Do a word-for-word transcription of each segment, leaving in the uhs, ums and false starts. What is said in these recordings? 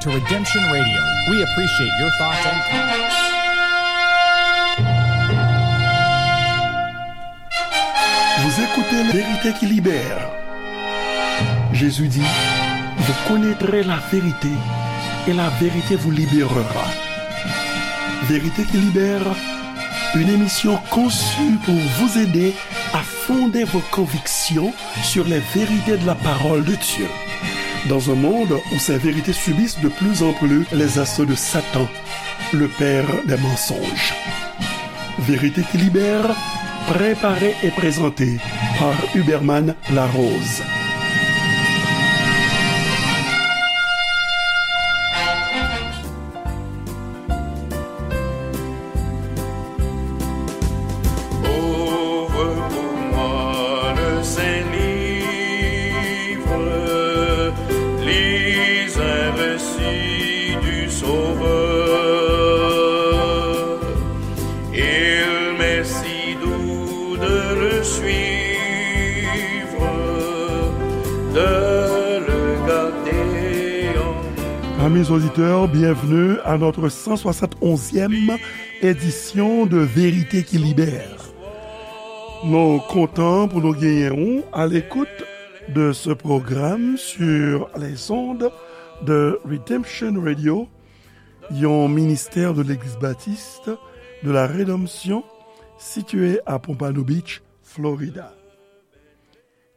To Redemption Radio, we appreciate your thoughts and comments. Vous écoutez La Vérité qui libère. Jésus dit, vous connaîtrez la vérité et la vérité vous libérera. Vérité qui libère, une émission conçue pour vous aider à fonder vos convictions sur les vérités de la parole de Dieu. Dans un monde où ces vérités subissent de plus en plus les assauts de Satan, le père des mensonges. Vérité qui libère, préparée et présentée par Huberman Larose. Ouvre pour moi le Saint-Livre, lis un récit du Sauveur. Il m'est si doux de le suivre, de le garder en Amis auditeurs, bienvenue à notre cent soixante et onzième édition de Vérité qui Libère. Nou kontan pou nou genyen ou à l'écoute de ce programme sur les ondes de Redemption Radio, yon ministè de Legliz Batis de la Redanmsyon sitiye a Pompano Beach, Florida.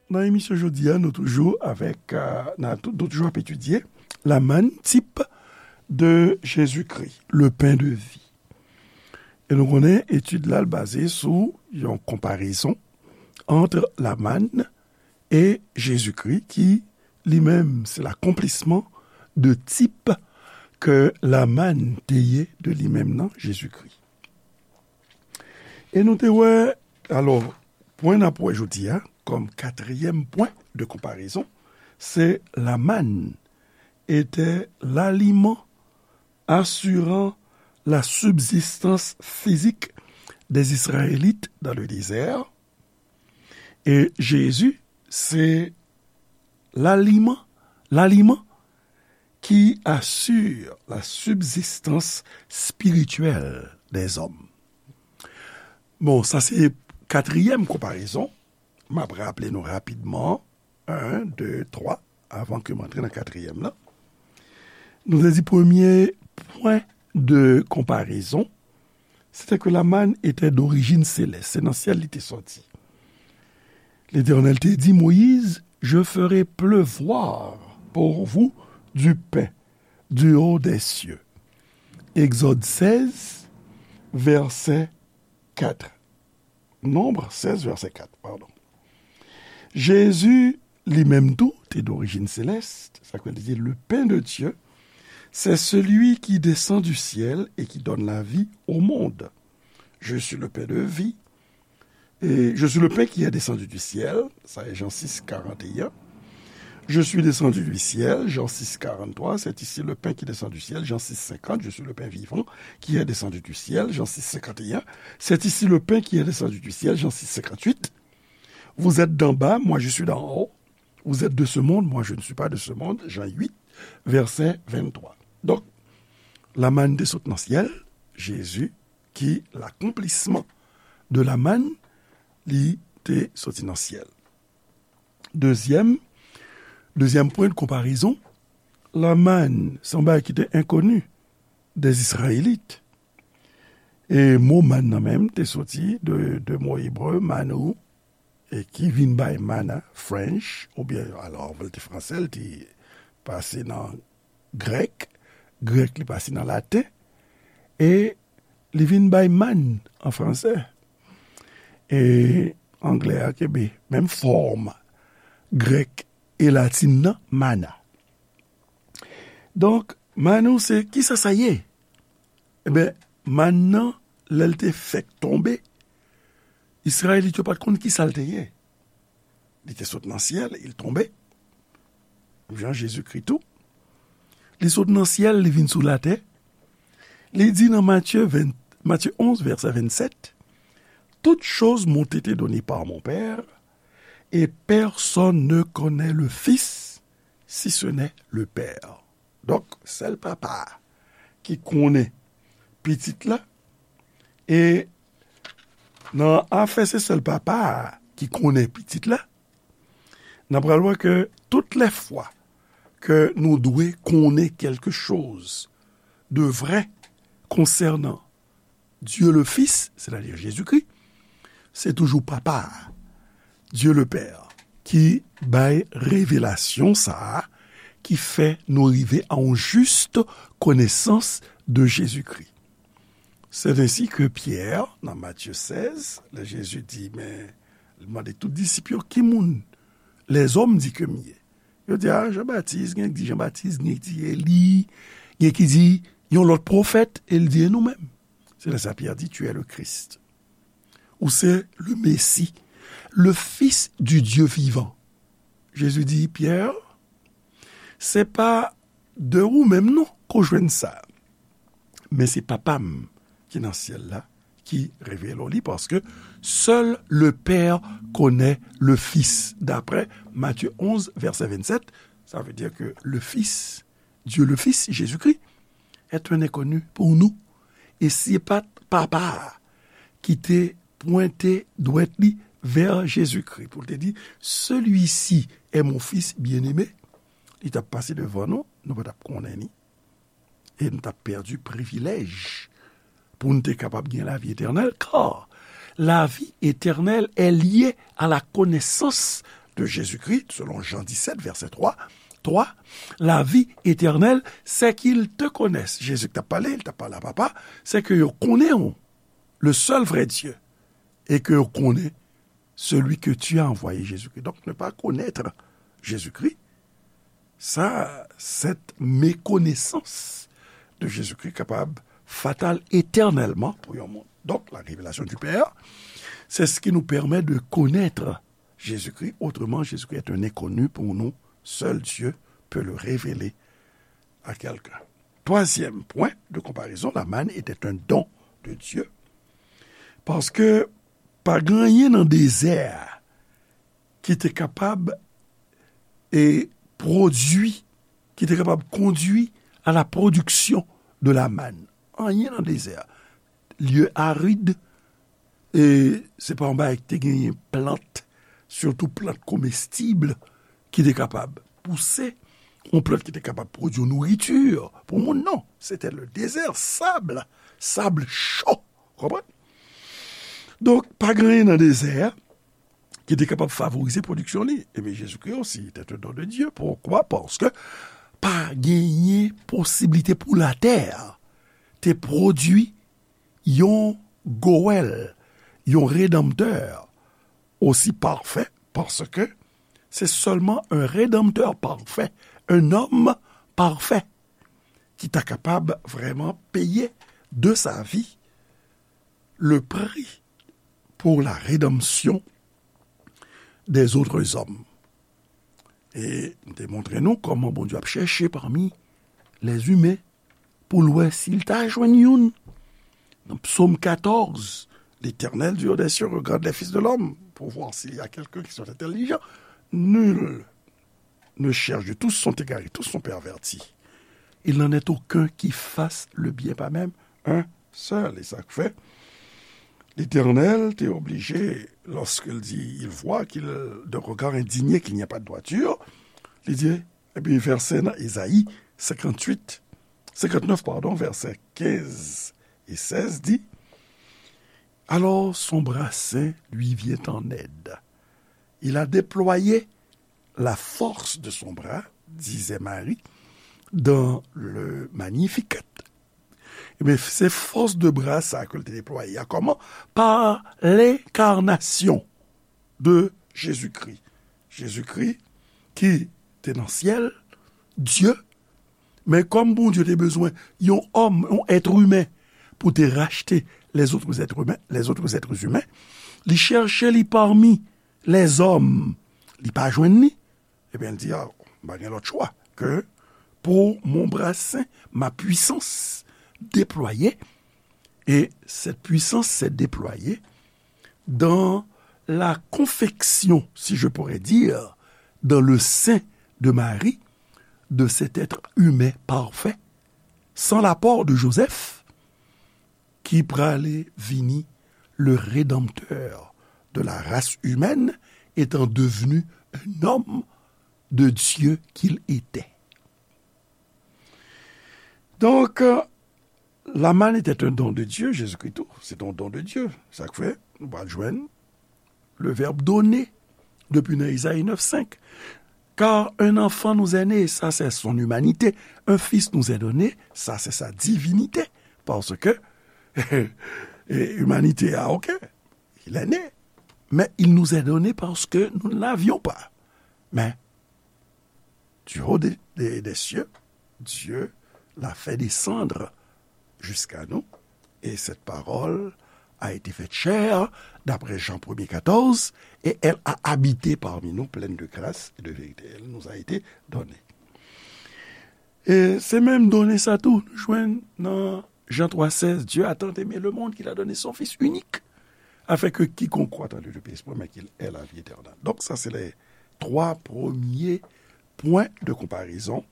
Nan emisyon jodi a, nou toujou avèk, euh, n a tou-, nou toujou ap etidye la manne, type de Jésus-Christ, le pain de vie. E nou konnen etid la, l baze sou yon konparezon ant la manne e Jezikri, ki li menm se l'accomplissement de type ke la manne te ye de li menm nan, Jezikri. E nou te wè, alò, pwen n ap wè jodi a, kòm katriyèm pwen de konparezon, se la manne était l'aliment assurant la subsistance physique des Israélites dans le désert. Et Jésus, c'est l'aliment, l'aliment qui assure la subsistance spirituelle des hommes. Bon, sa se katriyèm konparezon. M ap raple nou rapidman, un, deux, trois, avan ke m antre nan katriyèm lan. Nou te di premye pwen de konparezon, se te ke la manne était d'origine céleste, se nan syèl li te sòti. L'Éternel te di, Moïse, je ferai pleuvoir pour vous du pain du haut des cieux. Exode seize, verset quatre. Nombre seize, verset quatre, pardon. Jezi, li menm tou, te d'origine céleste, sa ke li di, le pain de Dieu, c'est celui qui descend du ciel et qui donne la vie au monde. Je suis le pain de vie. Et je suis le pain qui est descendu du ciel, ça est Jean six, quarante et un. Je suis descendu du ciel, Jean six, quarante-trois, c'est ici le pain qui descend du ciel, Jean six, cinquante, je suis le pain vivant qui est descendu du ciel, Jean six, cinquante et un, c'est ici le pain qui est descendu du ciel, Jean six, cinquante-huit. Vous êtes d'en bas, moi je suis d'en haut. Vous êtes de ce monde, moi je ne suis pas de ce monde, Jean huit, verset vingt-trois. Donk, la manne te sot nan syèl, Jezi, ki l'accomplissement de la manne, li te soti nan syèl. Dezyèm, dezyèm pwen de konparezon, la manne, se yon bagay ki te enkoni des Israélites. E mo manne nan menm te soti de, de mo ebre, manou, e ki vin bay mana, French, oubyen, alò, anvan l te fransè, l te pase nan grèk, grèk li pase nan laten, e li vin bay manne an fransè. E anglè a kenbe menm fòm grèk e latin nan, mana. Donk, manou se, kisa sa ye? Eben, mann nan, lè l te fèk tonbe, Izrayelit yo pa t konn kisa l te ye. Li te sot nan syèl, il tombe. Jan Jezikri tou. Li sot nan syèl, li vin sou latè. Li di nan Matye ven, Matye onz, vèsè vennsèt, Toutes choses m'ont été données par mon Père, et personne ne connaît le Fils, si ce n'est le Père. Donk, sèl papa a ki konnen pitit la, e nan afè se sèl papa a ki konnen pitit la, n ap pral wè ke tout lè fwa ke nou dwe konnen kèlke choz de vrè konsènan Dye le Fis, sètadi Jezikri, se toujou Papa a, Dye le Pè, ki bay revelasyon sa a, ki fè nou rive a yon jis konesans de Jezikri. C'est ainsi que Pierre, nan Matye sèz, lè Jezi di, men, li mande tout disip yo, ki moun lèzòm di ke m ye? Yo di, a, Jan Batis, gen ki di Jan Batis, gen ki di Eli, gen ki di yon lòt pwofèt, e l di, e nou menm? Se lè sa Pyè di, tu es le Christ. Ou se le Messie, le Fils du Dieu vivant. Jezi di, Pyè, se pa de ou menm non ke w jwenn sa. Men se Papa m ki nan syèl la ki revele w li, paske seul le Père connaît le Fils, d'après Matthieu onze, verset vingt-sept. Ça veut dire que le Fils, Dieu le Fils, Jésus-Christ, est un inconnu pour nous. E si se pa t Papa a ki te pwente dwèt li vè Jezikri pou l te di, celui-ci est mon Fils bien-aimé, li t ap pase devan nou, nou pa t ap konnen ni. E nou t ap pèdi privilèj pou n te kapab gen lavi etènèl, car la vie éternelle est liée à la connaissance de Jésus-Christ, selon Jean dix-sept, verset trois. Trois, la vie éternelle, c'est qu'ils te connaissent. Jezi ki t ap pale, li t ap pale a Papa, c'est que yo konnen w, le seul vrai Dieu, et que yo konnen celui que tu as envoyé, Jésus-Christ. Donc, ne pas connaître Jésus-Christ, ça, cette méconnaissance de Jésus-Christ kapab fatal éternellement pou yon moun. Donc, la révélation du Père, c'est ce qui nous permet de connaître Jésus-Christ. Autrement, Jésus-Christ est un inconnu pour nous. Seul Dieu peut le révéler à quelqu'un. Troisième point de comparaison, la manne était un don de Dieu. Paske pa gen anyen nan dezè a ki te kapab e pwodui, ki te kapab kondui à la production de la manne. Anyen nan dezè a. Lye arid, e se pa yon bagay ki te genyen plant, sitou plant komestib, ki te kapab pouse, yon plant ki te kapab pwodui nouriti pou moun, non. Se te le dezè, sab, sab cho, konprann? Donk, pa gen anyen nan dezè a ki te kapab favorize pwodiksyon li. Ebyen, Jezikri osi te te don de Dye. Poukwa? Paske pa genyen posiblite pou latè te pwodui yon Goèl, yon redanmtè osi pafè, paske se sèlman un rédempteur parfait, un homme parfait, ki ta kapab vrèman peye de sa vie le prix pour la rédemption des autres hommes. E m te montre nou kòman Bondye ap chèche pami lèzimen pou l wè si l ta jwenn youn. Nan Psaume quatorze, l'Éternel du haut des cieux regarde les fils de l'homme pour voir s'il y a quelqu'un qui soit intelligent. Nul ne cherche, tous sont égarés, tous sont pervertis. Il n'en est aucun qui fasse le bien, pas même un seul. E sa k fè Letènèl te oblije, lorsqu'il dit, il voit qu'il, de regard indigné, qu'il n'y a pas de droiture, li di, epi vèsè nan Ezayi senkannwit, senkannèf, pardon, vèsè kenz e sèz di, alors son bras saint lui vient en aide. Il a déployé la force de son bras, disait Marie, dans le Magnificat. Ebyen, se fòs de bra sa ke l te deplwaye a. Kòman? Pa lenkarnasyon de Jezikri. Jezikri ki te nan syèl, Dye, men kòm Bondye te bezwen yon òm, yon èt imen, pou te rachte les autres êtres humains, les autres êtres humains, li chèche li pami lèzòm, li pa jwenn li, ebyen, l di, a, m pa gen lòt chwa ke pour mon bras saint, ma puissance déployée, et cette puissance s'est déployée dans la confection, si je pourrais dire, dans le sein de Marie, de cet être humain parfait, sans l'apport de Joseph, ki prale vini le rédempteur de la race humaine, étant devenu un homme de Dieu qu'il était. Donk, euh, la manne était un don de Dieu, Jezikri tou, se te yon don de Dye. Sa k fè, nou pral jwenn le verbe donner, depi nan Ezayi nèf senk. Car un enfant nous est né, ça c'est son humanité. Un fils nous est donné, ça c'est sa divinité. Parce que, e, imanite a, ok, il est né. Mais il nous est donné parce que nous ne l'avions pas. Mais du haut des, des, des cieux, Dieu l'a fait descendre jusqu'à nous, et cette parole a été faite chair, d'après Jean premier quatorze, et elle a habité parmi nous, pleine de grâce et de vérité. Elle nous a été donnée. E se menm done sa tou, nou jwenn nan Jan twa sèz, Dieu a tant aimé le monde qu'il a donné son Fils unique, afin que quiconque croit en lui ne périsse point, mais qu'il ait la vie éternelle. Donk, sa se les trois premiers points de comparaison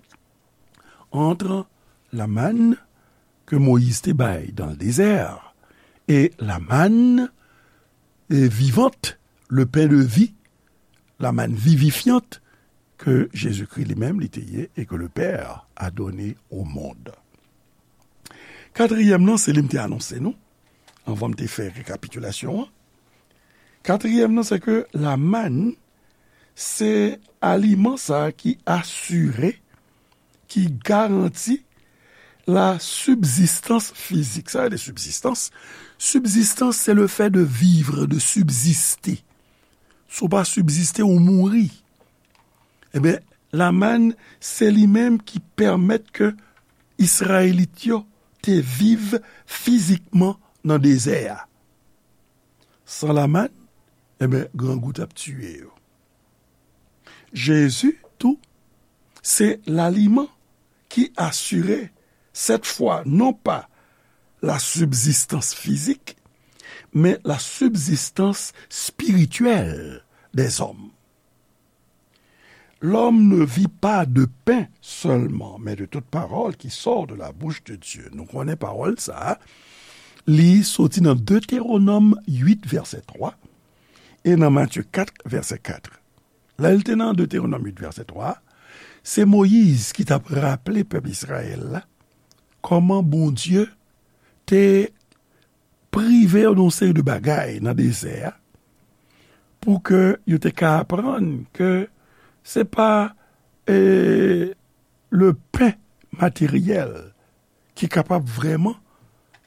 entre la manne que Moïse te bay dans le désert et la manne, euh, vivante, le pain de vie, la manne vivifiante que Jésus-Christ lui-même, li te ye, et que le Père a donné au monde. Katriyèm nan, se li m te anonse nou, anvan m te fè rekapitilasyon an. Katriyèm nan, se ke la manne, se aliman sa a ki asire, ki garanti la subsistance physique. Sa vle di subsistance. Subsistance, c'est le fait de vivre, de subsister. Si w pa sibsiste, ou mouri. Ebyen, la manne, se li menm ki pèmèt ke Izrayelit yo te viv fizikman nan dezè a. San la manne, ebyen, grangou t ap tiye yo. Jezi tou, se laliman ki asire, cette fois, non pas la subsistance physique, mais la subsistance spirituelle des hommes. L'homme ne vit pas de pain seulement, mais de toute parole qui sort de la bouche de Dieu. Nou konnen pawòl sa a, li soti nan Deutéronome huit, verset trois, e nan Matthieu quatre, verset quatre. Lè l te nan Deutéronome huit, verset trois, se Moyiz ki t ap raple pèp Izrayèl la kòman Bondye te prive yo de yon seri de bagay nan dezè a, pou ke yo te ka aprann ke se pa, e, le pen materyèl ki kapab vrèman,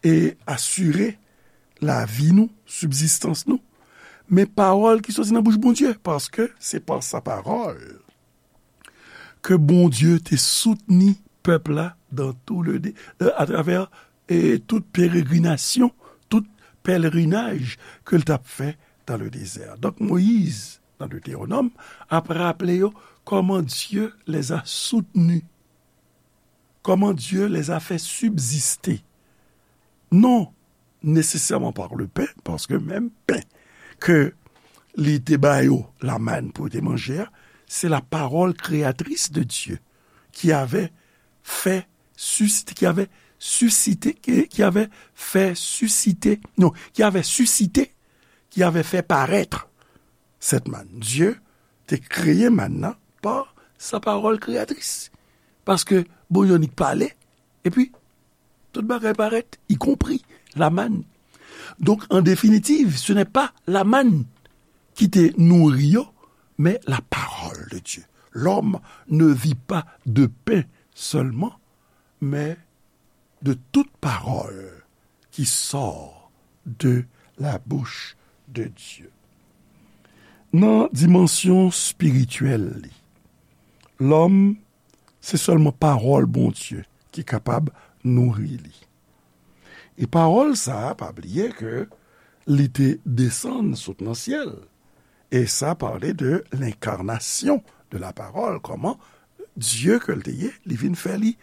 e, asire lavi nou, sibzistans nou, men pawòl ki soti nan bouch Bondye, paske se pa sa pawòl ke Bondye te soutni pèp la dans tout le dé-, euh, à travers, e, tout peregrinasyon, tout pèlerinaj ke l t ap fè dans le désert. Donk, Moyiz, nan Deutéronome, ap raple yo kòman Dieu les a soutenus, comment Dieu les a fait subsister. Non, nécessairement par le pain, paske menm pen ke li te ba yo, la manne pou yo te manje a, se la parole créatrice de Dieu qui avait fait susciter, qui avait suscité, qui, qui avait fait susciter, non, qui avait suscité, qui avait fait paraître cette manne. Dieu te kreye mann nan pa sa parole créatrice. Paske Bondye annik pale, epi tout bagay parèt, y compris la manne. Donc, en définitive, ce n'est pas la manne qui te nourrit, mais la parole de Dieu. L'homme ne vit pas de pain seulement, mais de toute parole qui sort de la bouche de Dieu. Nan dimansyon espirityèl li, lòm, se sèlman pawòl Bondye ki kapab nouri li. E pawòl sa a, pa bliye ke li te desann sot nan syèl. E sa pale de l'incarnation de la parole, kòman Dye ke l te ye, li vin fè li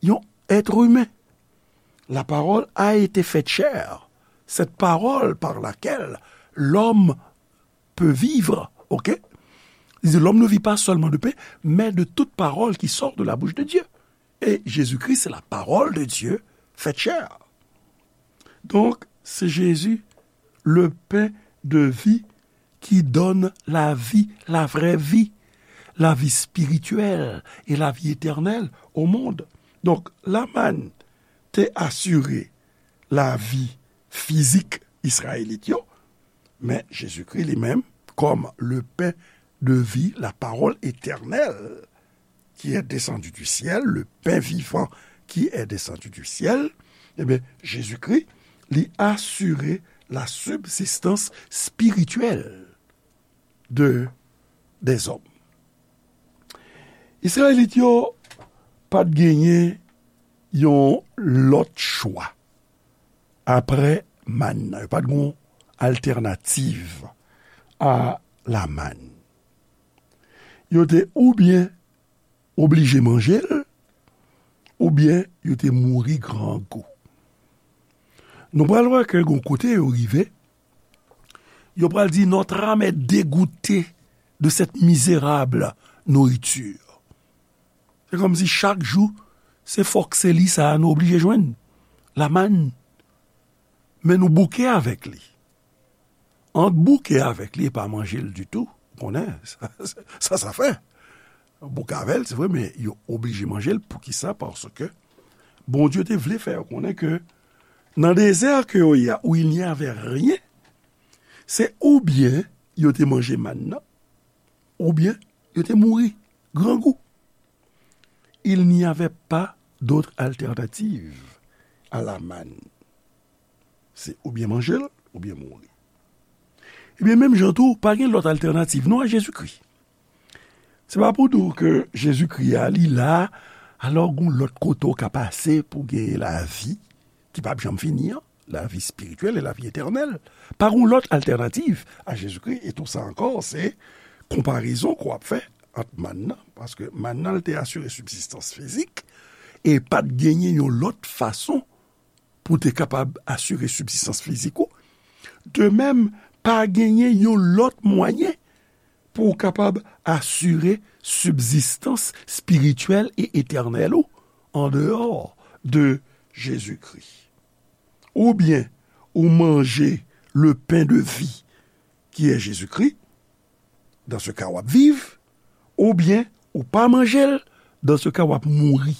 yon être humain. La parole a été faite chair. Cette parole par laquelle l'homme peut vivre, ok? Li di, l'homme ne vit pas seulement de pain, mais de toute parole qui sort de la bouche de Dieu. Et Jésus-Christ, c'est la parole de Dieu faite chair. Donc, c'est Jésus, le pain de vie, qui donne la vie, la vraie vie, la vie spirituelle et la vie éternelle au monde. Donc, la manne te asire lavi fizik Izrayelit yo, men Jezikri li menm, comme le pain de vie, la parole éternelle qui est descendue du ciel, le pain vivant qui est descendu du ciel, ebyen, Jezikri, li asire la subsistance spirituelle de, des hommes. Izrayelit yo pa t genyen yon lòt chwa apre mann nan. Yo pa t gen altènativ a la mann. Yo te oubyen oblije manje l, oubyen yo te mouri grangou. Nou pral wè ke gon kote yo rive, yo pral di, notre âme est dégoûtée de cette misérable nourriture. Se kòmsi chak jou, se fòk se li sa a nou oblije jwenn. La mann. Men nou bouke avèk li. Ant bouke avèk li e pa manje l ditou, ou konnen, sa, sa, sa fè. Bouke avè l, se vre, men yo oblije manje l. Poukisa? Paske Bondye te vle fè yo konnen ke nan dezè ke yo ye a, où il n'y avait rien, se oubyen yo te manje mann nan, oubyen yo te mouri grangou. Il n'y avait pas d'autre alternative à la manne. Se oubyen manje l, oubyen mouri. Ebyen, menm jan tou, pa gen lòt altènativ non a Jezikri. Se pa pou di w ke Jezikri a, li la, alò gon lòt kote w ka pase pou gen lavi ki p ap janm fini an, lavi espirityèl e lavi etènèl. Pa gon lòt altènativ a Jezikri, e tou sa ankò, se konparezon ke w ap fè ant mann nan, paske mann nan, l te asire sibzistans fizik, e pa t genyen yon lòt fason pou te kapab asire sibzistans fizik ou. De menm, pa genyen yon lòt mwayen pou w kapab asire sibzistans espirityèl e etènèl ou andeyò de Jezikri. Oubyen ou manje le pain de vie, qui est Jésus-Christ, dans ce cas, w ap viv, oubyen ou pa manje l, dans ce cas, w ap mouri.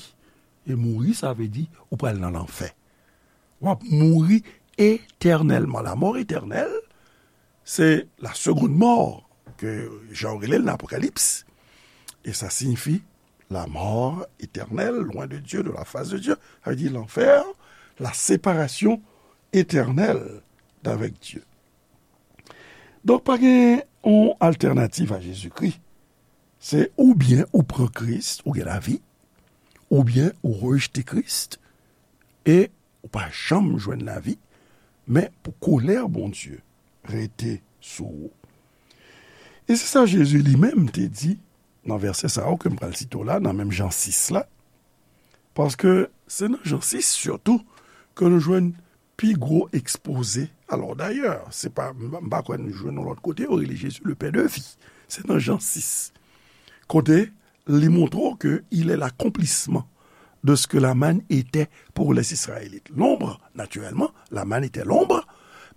E mouri, sa vle di ou pral nan lanfè. W ap mouri etènèlman. La mort éternelle, c'est la seconde mort, ke jan yo rele l nan Apokalips. E sa siyifi la mort éternelle, loin de Dieu, de la face de Dieu. Sa vle di lanfè, la séparation éternelle d'avec Dieu. Donk, pa gen yon altènativ a Jezikri. Se oubyen ou pran Kris, ou gen lavi, oubyen ou rejte Kris, e ou pa janm jwenn lavi, men pou kolè Bondye rete sou ou. E se sa Jezi li menm te di nan vèsè sa yo ke m pral site w la, nan menm Jan sis la, paske se nan Jan sis sitou ke nou jwenn pi gwo ekspoze. Alò, dayè, se pa, m, m pa kwè nou jwenn yon lòt kote, yo rele Jezi le pain de vie. Se nan Jan sis. Kote li montre w ke il est l'accomplissement de ce que la manne était pour les Israélites. L'ombre, naturellement, la manne était l'ombre,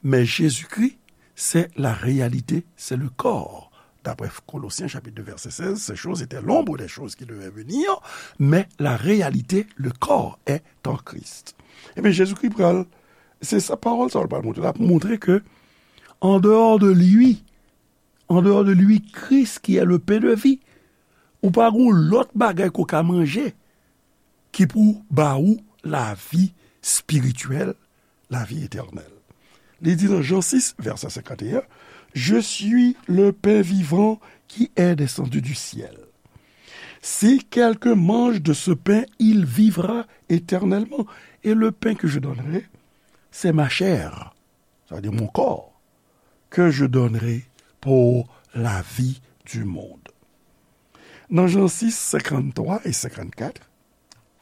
mais Jésus-Christ, c'est la réalité, c'est le corps. D'après Colossiens chapitre deux verset seize, ces choses étaient l'ombre des choses qui devaient venir, mais la réalité, le corps est en Christ. Ebyen, Jezikri pral, se sa pawòl sa l pral montre. L ap montre ke, en dehors de lui, en dehors de lui, Christ qui est le pain de vie, ou pa gon lòt bagay ke w ka manje ki pou ba ou lavi espirityèl, lavi etènèl. Li di nan Jan sis, vèsè senkanteyen, Je suis le pain vivant qui est descendu du ciel. Si quelqu'un mange de ce pain, il vivra éternellement. Et le pain que je donnerai, c'est ma chair, ça veut dire mon corps, que je donnerai pour la vie du monde. Nan Jan sis, senkanntwa e senkannkat,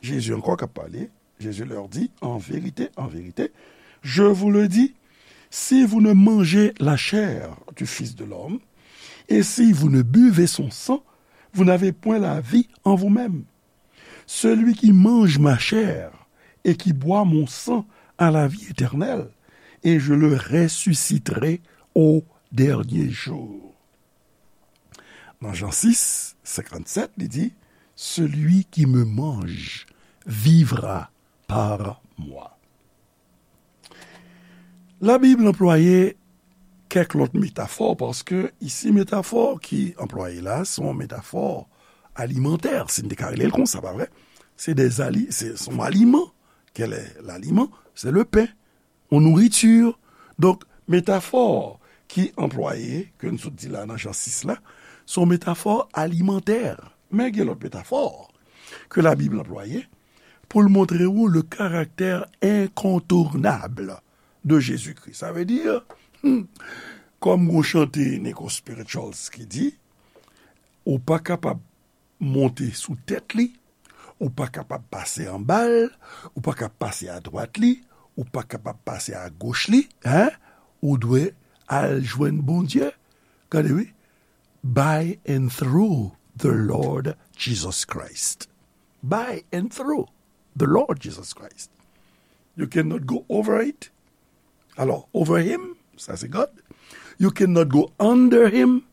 Jezi ankò k ap pale, Jésus leur dit, en vérité, en vérité, je vous le dis, si vous ne mangez la chair du Fils de l'homme Et si vous ne buvez son sang, vous n'avez point la vie en vous-même. Celui qui mange ma chair et qui boit mon sang a la vie éternelle, et je le ressusciterai au dernier jour. Nan Jan sis, senkannsèt, li di, celui qui me mange vivra par moi. Labib anplwaye kèk lòt metafò, paske isi metafò ki anplwaye la, se yon metafò alimantè, si n te ka rele l konsa, pa vre? Se de ali, se, se yon aliman. Quel est l'aliment? C'est le pain, yon nouriti. Donk, metafò ki anplwaye, ke n sot di la nan Jan sis la, se yon metafò alimantè. Men gen lòt metafò ke Labib anplwaye pou l montre w le caractère incontournable de Jésus-Christ. Sa vle di, hmm, kòm yon chante Nico Spirituals ki di, ou pa kapab monte sou tèt li, ou pa kapab pase anba l, ou pa kapab pase adwat li, ou pa kapab pase agoch li, en, ou dwe al jwenn Bondye. Gade wi, by and through the Lord Jesus Christ. By and through the Lord Jesus Christ. You cannot go over it. Alors, over him, ça c'est God. You cannot go under him,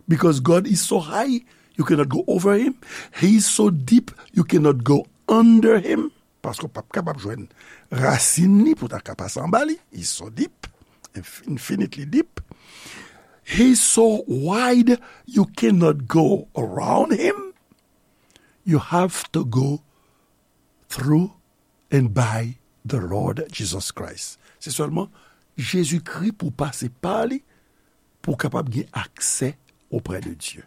because God is so high, you cannot go over him. He is so deep, you cannot go under him. Paske w p ap kapab jwenn rasin li pou w ta ka pase anba li. He's so deep, inf-, infinitely deep. He's so wide, you cannot go around him. You have to go through and by the Lord Jesus Christ. Se sèlman Jezikri pou w pase pa li, pou w kapab gen aksè auprès de Dieu.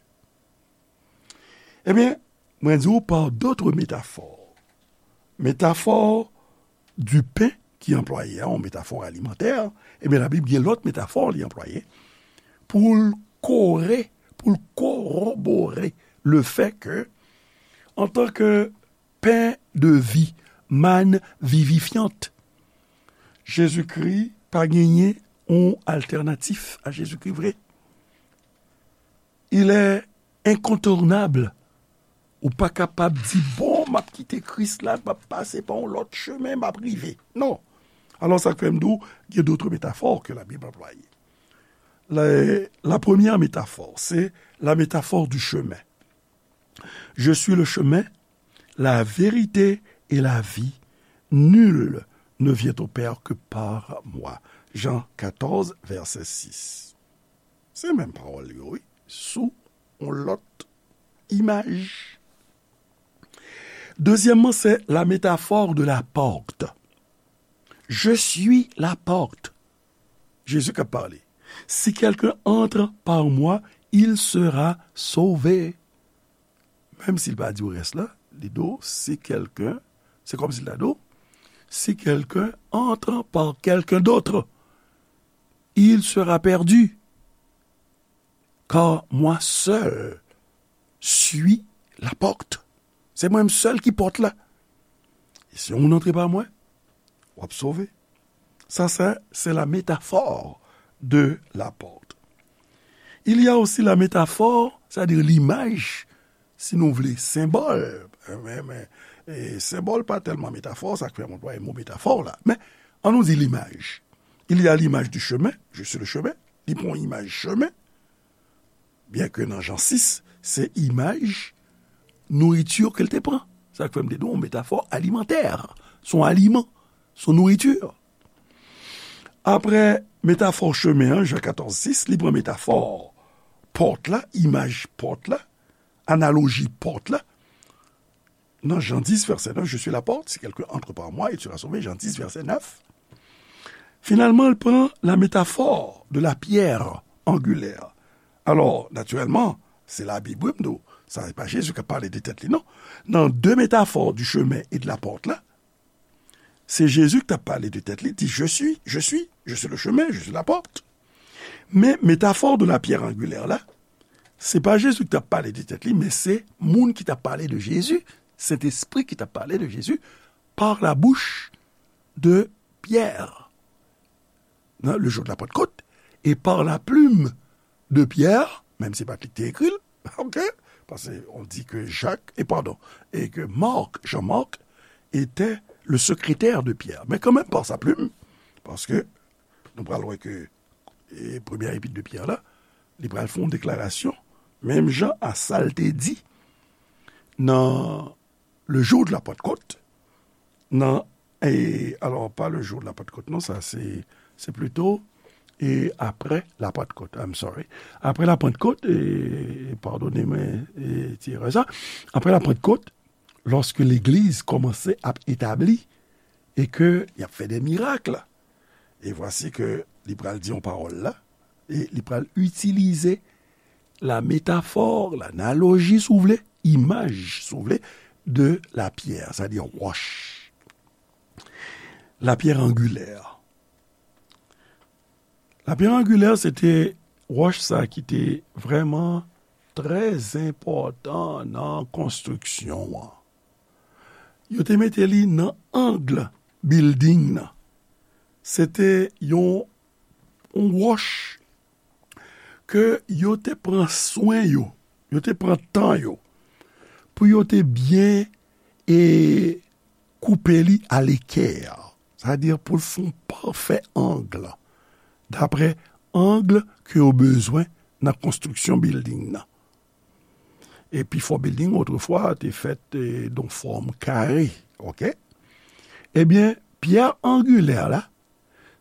Ebyen, mwen di w par d'autres métaphores. Metafò du pain ki anplwaye a, yon metafò alimantè, ebyen, Labib gen lòt metafò li anplwaye pou l kore, pou l korobore le fait que, en tant que pain de vie, manne vivifiante, Jezikri pa genyen yon altènatif a Jezikri vre. Il est incontournable. Ou pa kapab di, bon, m ap kite Kris la, m ap pase pa yon lòt chemen, m ap rive. Non. Alò, sa k fè m di w, il y a d'autres métaphores que la Bible emploie. La, la première métaphore, c'est la métaphore du chemin. Je suis le chemin, la vérité et la vie. Nul ne vient au Père que par moi. Jean quatorze, verset six. Se menm pawòl yo, wi, sou yon lòt imaj. Dezyèmman, c'est la métaphore de la porte. Je suis la porte. Jezi k ap pale. Si quelqu'un entre par moi, il sera sauvé. Menm si l pa di w rès la, li di w, si quelqu'un, se kòmsi l ta di w, si quelqu'un entre par quelqu'un d'autre, il sera perdu. Car moi seul suis la porte. Se mwen menm sèl ki pòt la. E si yon moun antre pa mwen, w ap sove. Ça, ça, c'est la métaphore de la porte. Il y a aussi la métaphore, c'est-à-dire l'image, si nou vle, senbòl. Men, men, e, senbòl pa tèlman metafò, sa k fè m anplwaye mo metafò la. Men, ann nou di limaj. Il y a l'image du chemin, je suis le chemin. Li pran yon imaj chemen. Byen ke nan Jan sis, se imaj nouriti ke l te pran. Sa k fè m te di w, yon metafò alimantè. Se yon aliman, se yon nouriti. Apre metafò chemen an, Jan katòz sis, li pran metafò pòt la, imaj pòt la, analoji pòt la. Nan Jan dis, vèsè nèf, je suis la porte, si quelqu'un entre par moi, il sera sauvé, Jan dis, vèsè nèf. Finalman, l pran la métaphore de la pierre angulaire. Alò, natirèlman, se Labib, wi, m di w, sa se pa Jezi k ap pale de tèt li, non. Nan de metafò du chemin et de la porte la, se Jezi ki t ap pale de tèt li, di, je suis, je suis, je suis le chemin, je suis la porte. Men metafò de la pierre angulaire la, se pa Jezi ki t ap pale de tèt li, men se moun ki t ap pale de Jezi, Sentespri ki t ap pale de Jezi, par la bouche de Pierre, nan, le jour de la Pentecôte, et par la plume de Pierre, menm si se pa t li ki te ekri l, ok? Paske on di ke Jak, e padon, e ke Mark, Jean-Marc, était le secrétaire de Pierre. Men kanmenm, par sa plim, paske nou pral wè ke e premyè epit de Pyè la, li pral fè yon deklarasyon, menm jan a sa l te di nan le jour de la Pentecôte, nan, e, alò, pa le jour de la Pentecôte, non, sa se, se plito, e apre la Pentecôte, I'm sorry. Apre la Pentecôte, e, padone mwen, e, ti erè sa, apre la Pentecôte, lòske legliz kòmanse ap etabli, e ke y ap fè de mirak, e vwasi ke li pral di yon pawòl la, e li pral itilize la métaphore, l'analogie, si w vle, imaj, si w vle, de la pierre, sa di wòch. La pierre angulaire. La pierre angulaire, se te wòch sa ki te vrèman trè enpòtan nan konstriksyon an. Yo te mete li nan ang bilding nan. Se te yon, yon wòch ke yo te pran swen yo, yo te pran tan yo, pou yo te byen e koupe li a lekè. Sa vle di pou l fè yon pafè ang, dapre ang ke yo bezwen nan konstriksyon bilding nan. E pifò bilding otrefwa te fèt, e, nan fòm kare, ok? Ebyen, pyè angilè la,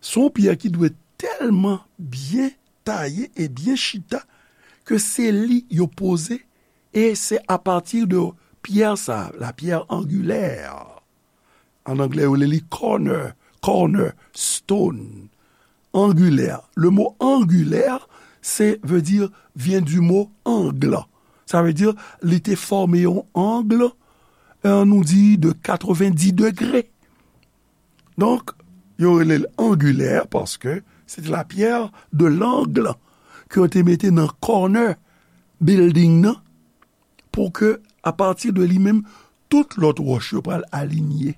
se yon pyè ki dwe tèlman byen taye e byen chita ke se li yo poze, e se apati de pyè sa, la pierre angulaire. An anglè, yo rele li corner, corner stone, angulaire. Le mot angulaire, se, veut dire, vient du mot angle. Sa vle di, li te fòme yon ang, e, nou di de katrevenndis degre. Donk, yo rele l angilè paske se te la pierre de l'angle ke yo te mete nan corner building nan pou ke, apati de li menm, tout lòt wòch yo pral alinye.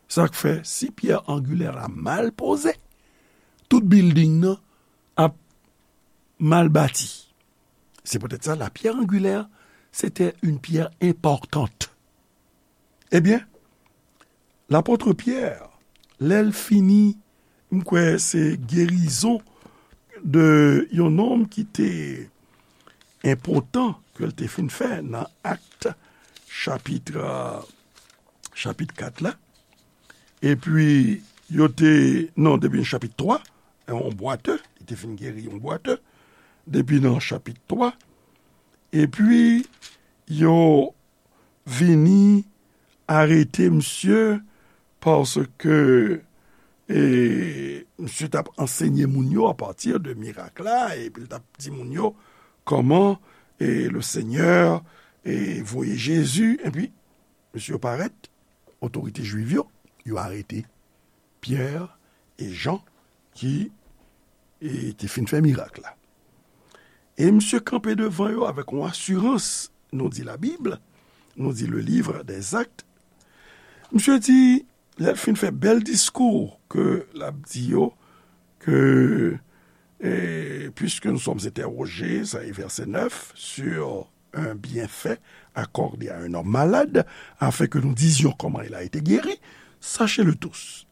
Sa k fè, si pyè angilè la mal poze, tout building nan ap mal bati. C'est peut-être ça, la pierre angulaire, c'était une pierre importante. Ebyen, lapot Pyè, lè l fini, m kwè se gerizon de yon nonm ki te enpòtan ke l te fin fè nan Akt, chapit, chapit kat la. Epi, yo te, non, depi nan chapit twa, yon bwate, li te fin geri yon bwate, depi nan chapit twa. Epi, yo vini arete misye paske, e, misye t ap ansenye moun yo apati de mirak la, epi l t ap di moun yo kòman, e, le Senyè, e, voye Jezi, epi misye parèt, otorite jwif yo, yo arete Pyè e Jan ki, e, te fin fè mirak la. E misye kanpe devan yo avèk yon asirans, nou di Labib, nou di le livre des Actes. Misye di, lè l fin fè bèl diskou ke l ap di yo, ke, e, puisque nous sommes interrogés, sa e vèsè nèf, sur un bienfait accordé à un homme malade, afin que nous disions comment il a été guéri, sachez-le tous,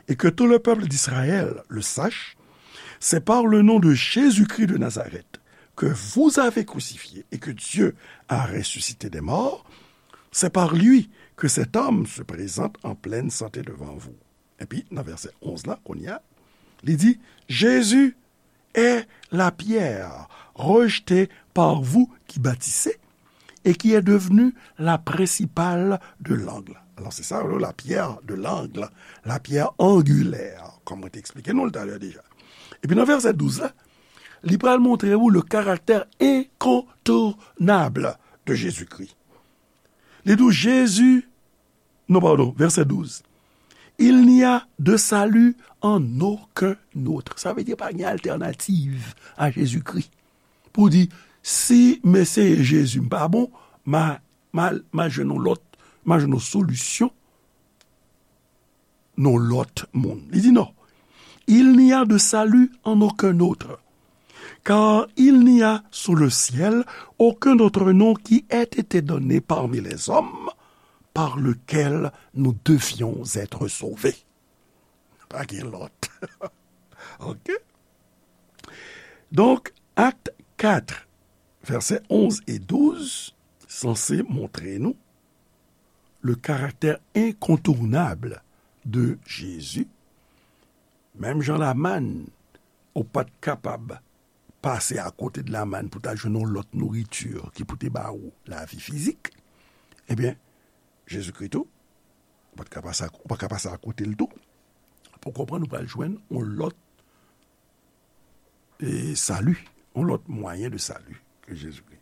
et que tout le peuple d'Israël le sache, c'est par le nom de Jésus-Christ de Nazareth, que vous avez crucifié et que Dieu a ressuscité des morts, c'est par lui que cet homme se présente en pleine santé devant vous. Epi, nan vèsè onz la, kounye a, li di, Jésus est la pierre rejetée par vous qui bâtissez et qui est devenue la principale de l'angle. Alò, se sa, la pierre de l'angle, la pierre angulaire, kòm mwen te eksplike nou l talè deja. Epi nan vèsè douz la, li pral montre ou le caractère incontournable de Jésus-Christ. Li di w Jezi, non, padon, vèsè douz. Il n'y a de salut en aucun autre. Sa vle di pa gen altènativ a Jezikri. Pou di, si m eseye Jezi m pa bon, m a, m a, m a jwenn yon lòt, m a jwenn yon solisyon nan lòt moun. Li di non. Il n'y a de salut en aucun autre, Car il n'y a sous le ciel aucun autre nom qui ait été donné parmi les hommes par lequel nous devions être sauvés. Pa gen lòt. Ok? Donk, Acte quatre, versets onze et douze, sanse montre nou le caractère incontournable de Jésus. Menm jan Lamann, ou pa t kapab pase akote de Lamann pou ta jwenn yon lòt nouriti ki pou te ba ou lavi fizik, ebyen, Jezikri tou, ou pa t ka pase ak-, ou pa ka pase akote l tou. Pou konprann, ou pral jwenn yon lòt e sali, yon lòt mwayen de sali ke Jezikri.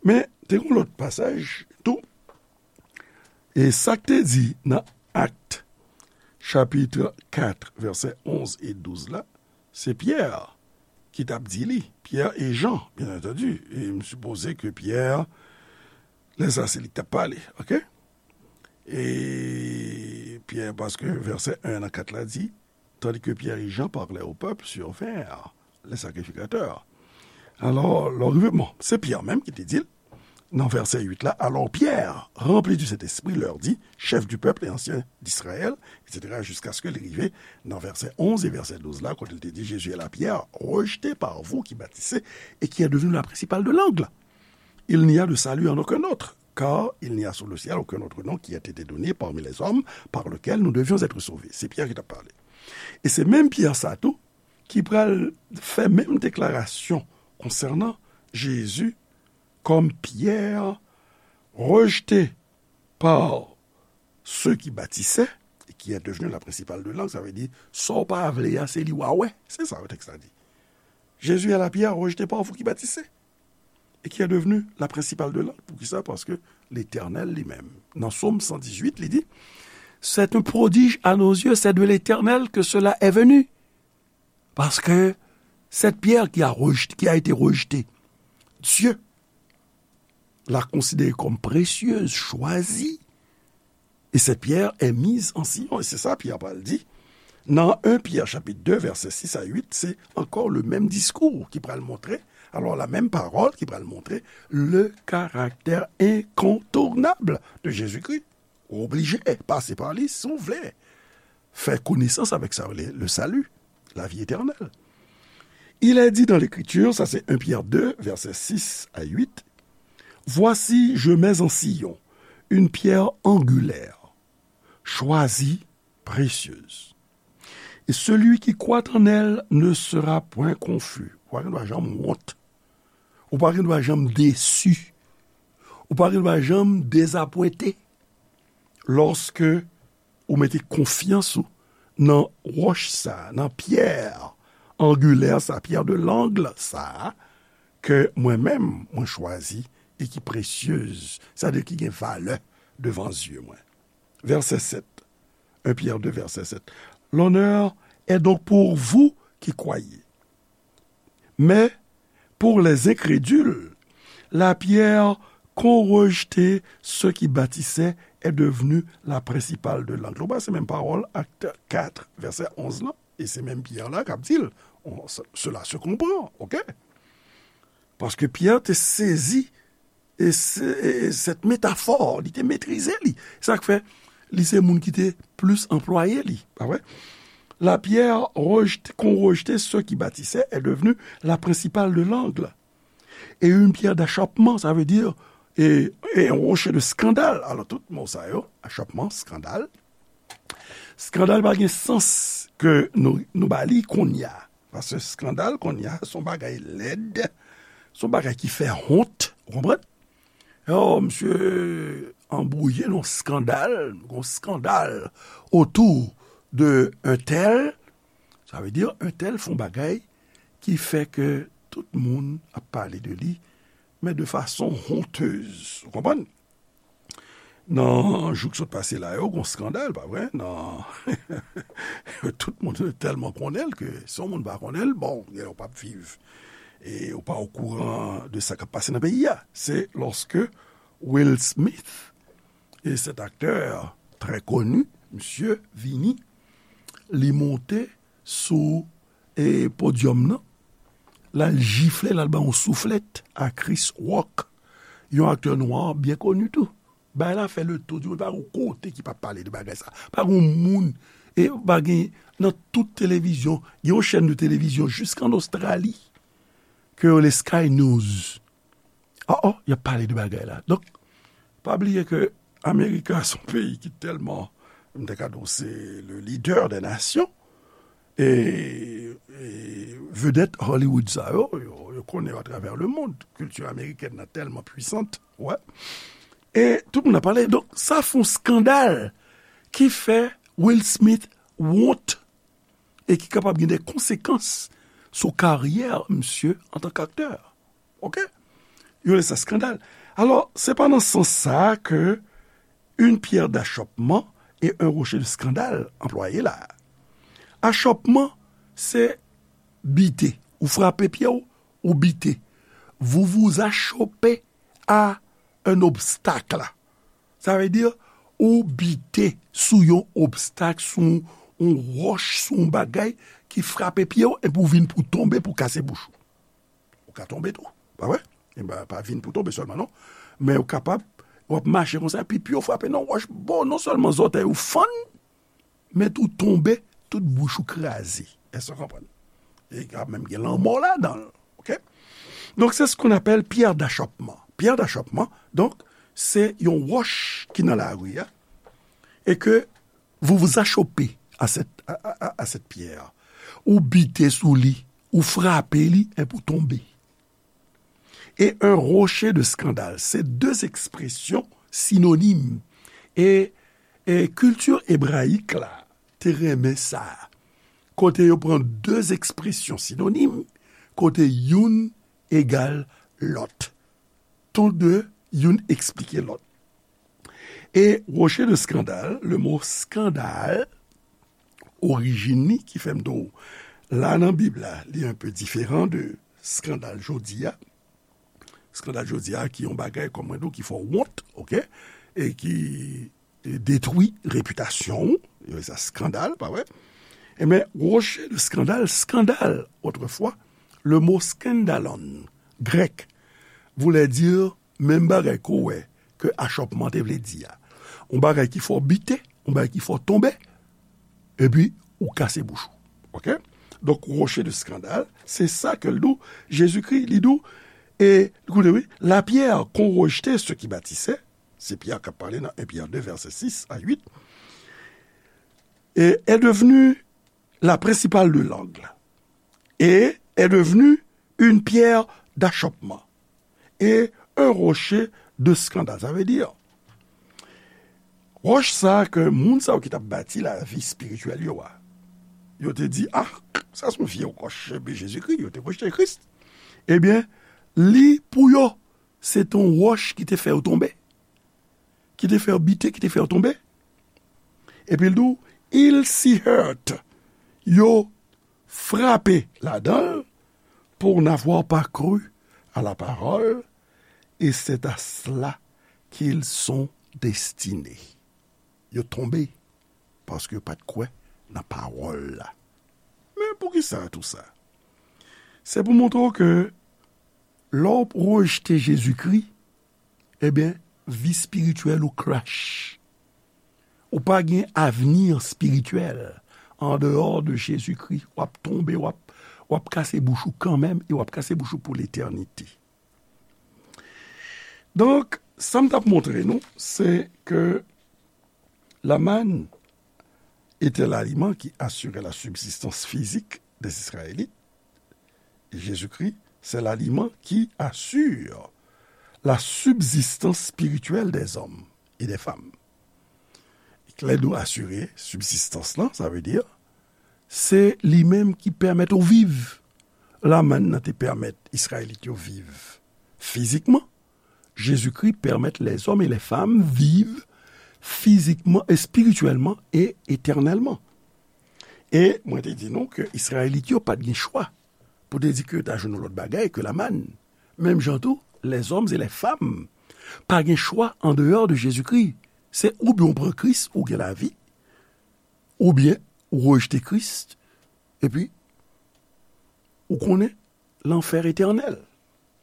Men, te gen yon lòt pasaj tou, e sa k te di nan Acte, chapitre quatre, versets onze et douze la, se Pyè ki t ap di li. Pyè e Jan, byen antandi. E m sipoze ke Pyè, lè sa, se li k t ap pale, ok? E Pyè, paske vèsè en an kat la di, tandis que Pierre et Jean parlaient au peuple sur vers les sacrificateurs. Alò, lè w rive, bon, se Pyè menm ki te di l, nan vèsè uit la, alors Pierre, rempli du Saint-Esprit, leur dit, chefs du peuple et anciens d'Israël, et cetera, jusqu'à ce que li rive nan vèsè onz e vèsè douz la, kote l te di, Jésus est là, Pierre, rejeté par vous qui bâtissez et qui est devenu la principale de l'angle. Il n'y a de salut en aucun autre, car il n'y a sous le ciel aucun autre nom qui ait été donné parmi les hommes par lequel nous devions être sauvés. Se Pyè ki t ap pale. E se menm Pyè sa tou ki pral fè menm deklarasyon konsènan Jezi kòm Pyè rejte pa ceux qui bâtissaient et qui est devenu la principale de l'angle. Sa vle di, sa w pa vle a, se li w a wè. Se sa tèks la di. Jésus est la pierre rejetée par vous qui bâtissez et qui est devenue la principale de l'angle. Poukisa? Paske Letènèl li menm, nan Sòm san dizuit, li di, c'est un prodige à nos yeux, c'est de l'Éternel que cela est venu. Parce que cette pierre qui a rejeté, qui a été rejetée, Dieu l'a considérée comme précieuse, choisie, et cette pierre est mise en Sion. E se sa Pyè pral di. Nan en Pyè chapit de, vèsè sis a uit, se ankò le menm diskou ki pral montre, alò la menm pawòl ki pral montre le caractère incontournable de Jésus-Christ. Ou oblije pase pa li si w vle fè konesans avèk sa yo rele le salut, la vie éternelle. Il est dit dans l'Écriture, sa se en Pyè de, vèsè sis a uit, Voici, je mets en Sion une pierre angulaire, choisie, précieuse. Et celui qui croit en elle ne sera point confus. Ou pa gen dwa janm wont. Ou pa gen dwa janm desi. Ou pa gen dwa janm dezapwente. Lòske ou mete konfyans ou nan wòch sa, nan pyè angilè sa, pierre de l'angle sa, ke mwen menm, mwen chwazi, e ki presyez, sa vle di ki gen valè devan zye mwen. Vèsè sèt, en Pyè de, vèsè sèt. L'honneur est donc pour vous qui croyez. Mais pour les incrédules, la pierre qu'ont rejetée ceux qui bâtissaient est devenue la principale de l'angle. Ou wè, se menm pawòl, Acte quatre, vèsè onz lan, e se menm Pyè la k ap di l, on, se- cela se comprend, ok? Paske Pyè te sezi e se- e cette métaphore, li te metrize li. Sa k fè li se moun ki te plis anplwaye li, pa vre? La pierre rejetée, qu'ont rejetée ceux qui bâtissaient est devenue la principale de l'angle. Et une pierre d'achoppement, ça veut dire, et, et un rocher de scandale. Alò, tout mo sa yo, achoppement, scandale. Skandal pa gen sans ke nou, nou ba li kounye a. Paske skandal kounye a, se yon bagay lèd, se yon bagay ki fè wont, ou konprann? Oh, misye anbwouye nan skandal, yon skandal autour de un tel, sa vle di un tel fè yon bagay ki fè ke tout moun ap pale de li, men de fason honteuse, ou konprann? Nan jou k sot pase la yo, gon skandal, pa vre? Nan, tout moun tèlman konnen l ke si yon moun pa konnen l, bon, ou p ap viv. E ou pa okouran de sa k ap pase nan peyi a. Se lòske Will Smith, e cet acteur très connu, misye vini, li monte sou e podyòm nan, l al jifle, l al ba yon souflèt a Chris Rock, yon aktè nwa byen koni tou. Bagay la fè le tour du monde. Pa gen kote ki pa pale de bagay sa. Pa gen moun, e pa gen, nan tout televizyon, gen yon chèn de televizyon jiska an Ostrali, ke yo rele Sky News. Oh, oh, y ap pale de bagay la. Donk, pa bliye ke Amerika se yon peyi ki tèlman, m te ka di w, se le leader des nations. E, e vedèt Hollywood sa yo, yo, yo konnen yo atravè le mond. Kilti amerikèn nan tèlman pwisant, wè. E tout moun ap pale. Donk, sa fè yon skandal ki fè Will Smith wont e ki kapab gen de konsekans sou karyè misye antanke aktè. Oke? Yo rele sa skandal. Alò, se pa nan sans sa a ke une pierre d'achoppement et un rocher de scandale anplwaye la. Achòpman, se bite. Ou frape pye w, ou bite. Vous vous achoppez à un obstacle. Sa vle di, ou bite sou yon obstak, sou yon, yon wòch, sou yon bagay ki frape pye w, epi w vin pou tonbe, pou kase bouch ou. Ou ka tonbe tou, pa vre? E pa, pa vin pou tonbe sèlman, non. Men ou kapab, w ap mache konsa, epi pye w frape nan wòch, bon, non sèlman zòtèy ou fann, men tou tonbe, tout bouch ou kraze. Èske w konprann? E ka menm gen lanmò ladan l, oke? Donk, c'est ce qu'on appelle pierre d'achoppement. Pierre d'achoppement, donk, se yon wòch ki nan lari a, e ke vous vous achoppez à cette, à, à, à, à cette pierre. Ou bite sou li, ou frape li, epi ou tonbe. Et un rocher de scandale, se de ekspresyon sinonim. E, e kilti ebrayik la te renmen sa. Kote yo pran de ekspresyon sinonim, kote youn egal lòt. Tou de, youn eksplike lòt. E rocher de scandale, le mo skandal, orijin li, ki fè m di w, la nan Bib la, li un peu diferan de skandal jodi a. Skandal jodi a, ki yon bagay, kòm mwen di w, ki fè w wont, oke? E ki detwi repitasyon w, yo rele sa skandal, pa vre? Ebyen, rocher de scandale, skandal, otrefwa, le mot skandalon, grèk, voulait dire menm bagay ke w wè ke achòpman te vle di a. Yon bagay ki fè w bite, yon bagay ki fè w tonbe, epi ou kase bouch ou. Oke? Donk, rocher de scandale, se sa ke l di w, Jezikri, li di w, e, koute, wi, la pierre qu'ont rejeté ceux qui bâtissaient, se Pyè k ap pale nan un Pyè de, vèsè sis a uit, et est devenue la principale de l'angle, et est devenue une pierre d'achoppement et un rocher de scandale. Sa vle di, wòch sa a ke moun sa yo ki t ap bati lavi espirityèl yo a, yo te di, ah, sa se yon vye wòch, epi Jezikri, yo te rejte Kris. Ebyen, li pou yo, se te yon wòch ki te fè yo tonbe, ki te fè yo bite, ki te fè yo tonbe. Epi l di w, ils s'y heurtent, yo frape ladan l, pour n'avoir pas cru à la parole, et c'est à cela qu'ils sont destinés. Yo tonbe paske yo pa t kwè nan pawòl la. Men poukisa tou sa? Se pou montre w ke lè w rejte Jezikri, ebyen, vi espirityèl ou crash. Ou pa gen avni espirityèl andeyò de Jezikri. W ap tonbe, w ap, w ap kase bouch ou kanmenm, e w ap kase bouch ou pou letènite. Donk, sa m t ap montre nou, se ke la manne était l'aliment qui assurait la subsistance physique des Israélites. Jésus-Christ, c'est l'aliment qui assure la subsistance spirituelle des hommes et des femmes. Lè nou asire sibsistans lan, sa vle di, se li menm ki pèmèt ou viv. La mann nan te pèmèt Izrayelit yo viv fizikman. Jezikri pèmèt lèzòm e lèfam viv fizikman, espirityèlman e etènèlman. E mwen te di nou ke Izrayelit yo pa t gen chwa pou te di ke yo ta jwenn yon lòt bagay ke la mann. Menm jan tou, lèzòm e lèfam pa gen chwa andeyò de Jezikri. Se oubyen w pran Kris, ou gen lavi, oubyen ou rejte Kris, epi ou konnen lanfè etènèl.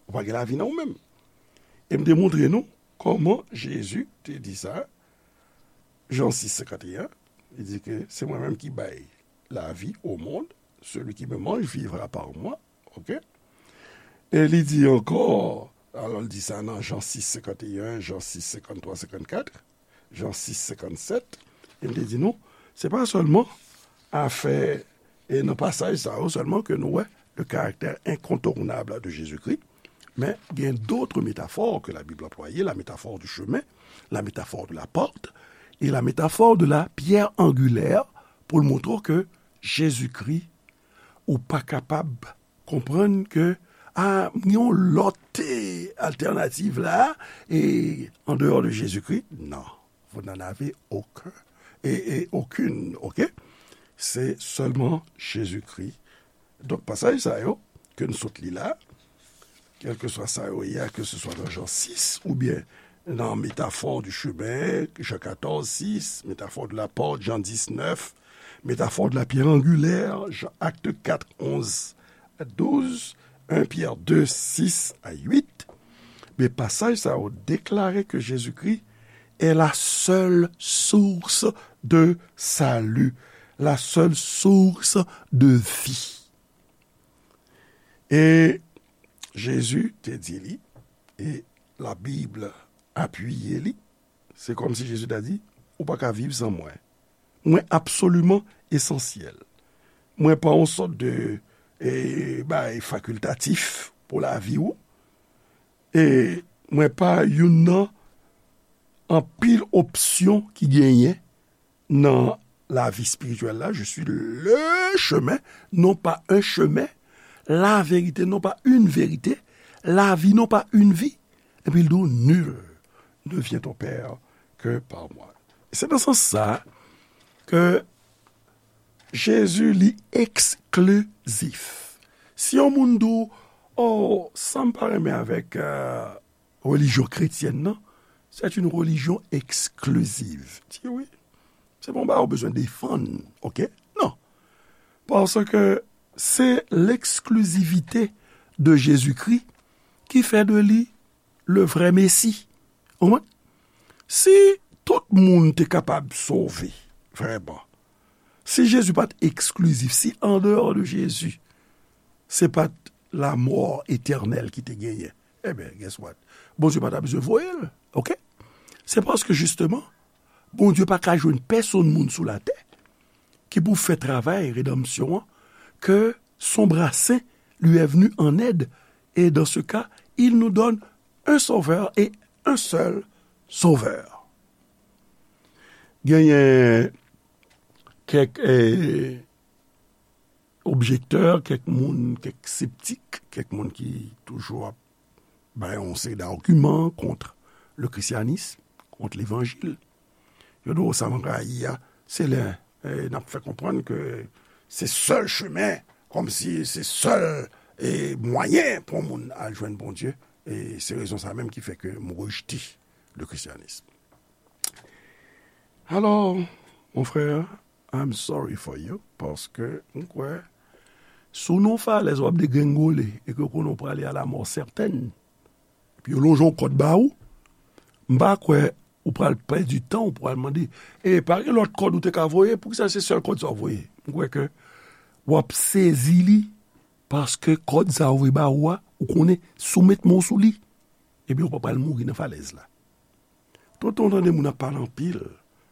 Ou pa gen lavi nan ou menm. E m te montre nou kòman Jezi te di sa. Jan sis, senkanteyen, li di ke se mwen menm ki bay lavi au monde, celui qui me mange vivra par moi. Ok? E li di ankò, alò, li di sa nan Jan sis, senkanteyen, Jan sis, senkanntwa, senkannkat, Jan sis, senkannsèt, e m te di nou, se pa sèlman afè, e nan pasaj sa yo sèlman ke nou wè le caractère incontournable de Jésus-Christ, men gen d'autres métaphores que la Bible employait, la métaphore du chemin, la métaphore de la porte, et la métaphore de la pierre angulaire, pou l montre ke Jezikri, ou pa kapab konprann ke, a, gen yon lòt, e, altènativ la, e, en dehors de Jésus-Christ, non, vous n'en avez aucun, et, et aucune, ok? Se sèlman Jezikri. Donk, pasaj sa yo, ke n sot li la, kèlkeswa sa yo ye a, ke se swa nan Jan sis, oubyen nan métaphore du chemin, Jan katòz sis, métaphore de la porte, Jan diznèf, métaphore de la pierre angulaire, Jan, Acte quatre, onze à douze, un Pierre deux, six à huit, men pasaj sa yo deklare ke Jezikri est la seule source de salut, la seule source de vie. E Jezi te di li, e Labib apiye li, se kòmsi Jezi ta di, ou pa ka viv san mwen. Mwen absoliman esansyèl. Mwen pa yon sòt de, e, bagay fakiltatif pou lavi w. E mwen pa youn nan anpil opsyon ki genyen nan lavi espirityèl la. Je suis le chemin, non pas un chemin, la vérité, non pas une vérité, la vie, non pas une vie. Epi l di w, nul ne vient au Père que par moi. Se nan sans sa ke Jezi li eksklizif. Si yon moun di w, oh, sa m pa renmen avèk, euh, relijyon kretyèn nan, c'est une religion exclusive. Di wi. Se pa yon bagay ou bezwen defann, ok? Non. Paske se l'exclusivité de Jésus-Christ ki fè de li le vrai Messie. Ou konprann? Si tout moun te kapab sove, vrèman, si Jezi pa t eksklizif, si an dehors de Jezi, se pa t lamò etènèl ki te genyen, ebyen, guess what? Bondye pa ta bezwen voye l, ok? Se paske, jisteman, Bondye pa ka jwenn pèsonn moun sou latè ki pou fè travay redanmsyon an, que son bras saint lui est venu en aide, et dans ce cas, il nous donne un sauveur et un seul sauveur. Genyen kèk, eh, objektè, kèk moun, kèk septik, kèk moun ki toujou ap bay yon seri d'agiman kont le christianisme, kont levanjil. Yo di w sa m rayi a, se lè, eh, n ap fè konprann ke se sèl chemen, kòmsi se sèl, eh, mwayen pou yon moun al jwenn Bondye. E se rezon sa menm ki fè ke m rejte le christianisme. Alò, mon frè, I'm sorry for you, paske m kwè, si w nan yon falèz w ap degrengole e ke w konnen w prale a la mort certaine, epi yo lonje yon kòd ba ou, m pa kwè ou pral pèdi tan, ou pral mande, e pa gen lòt kòd ou te ka voye, poukisa se sèl kòd sa w voye? M kwè ke w ap sezi li, paske kòd sa yo voye ba ou a, ou konnen, si w met men w sou li, ebyen, ou pa pral mouri nan falèz la. Tout tan w tande moun ap pale anpil,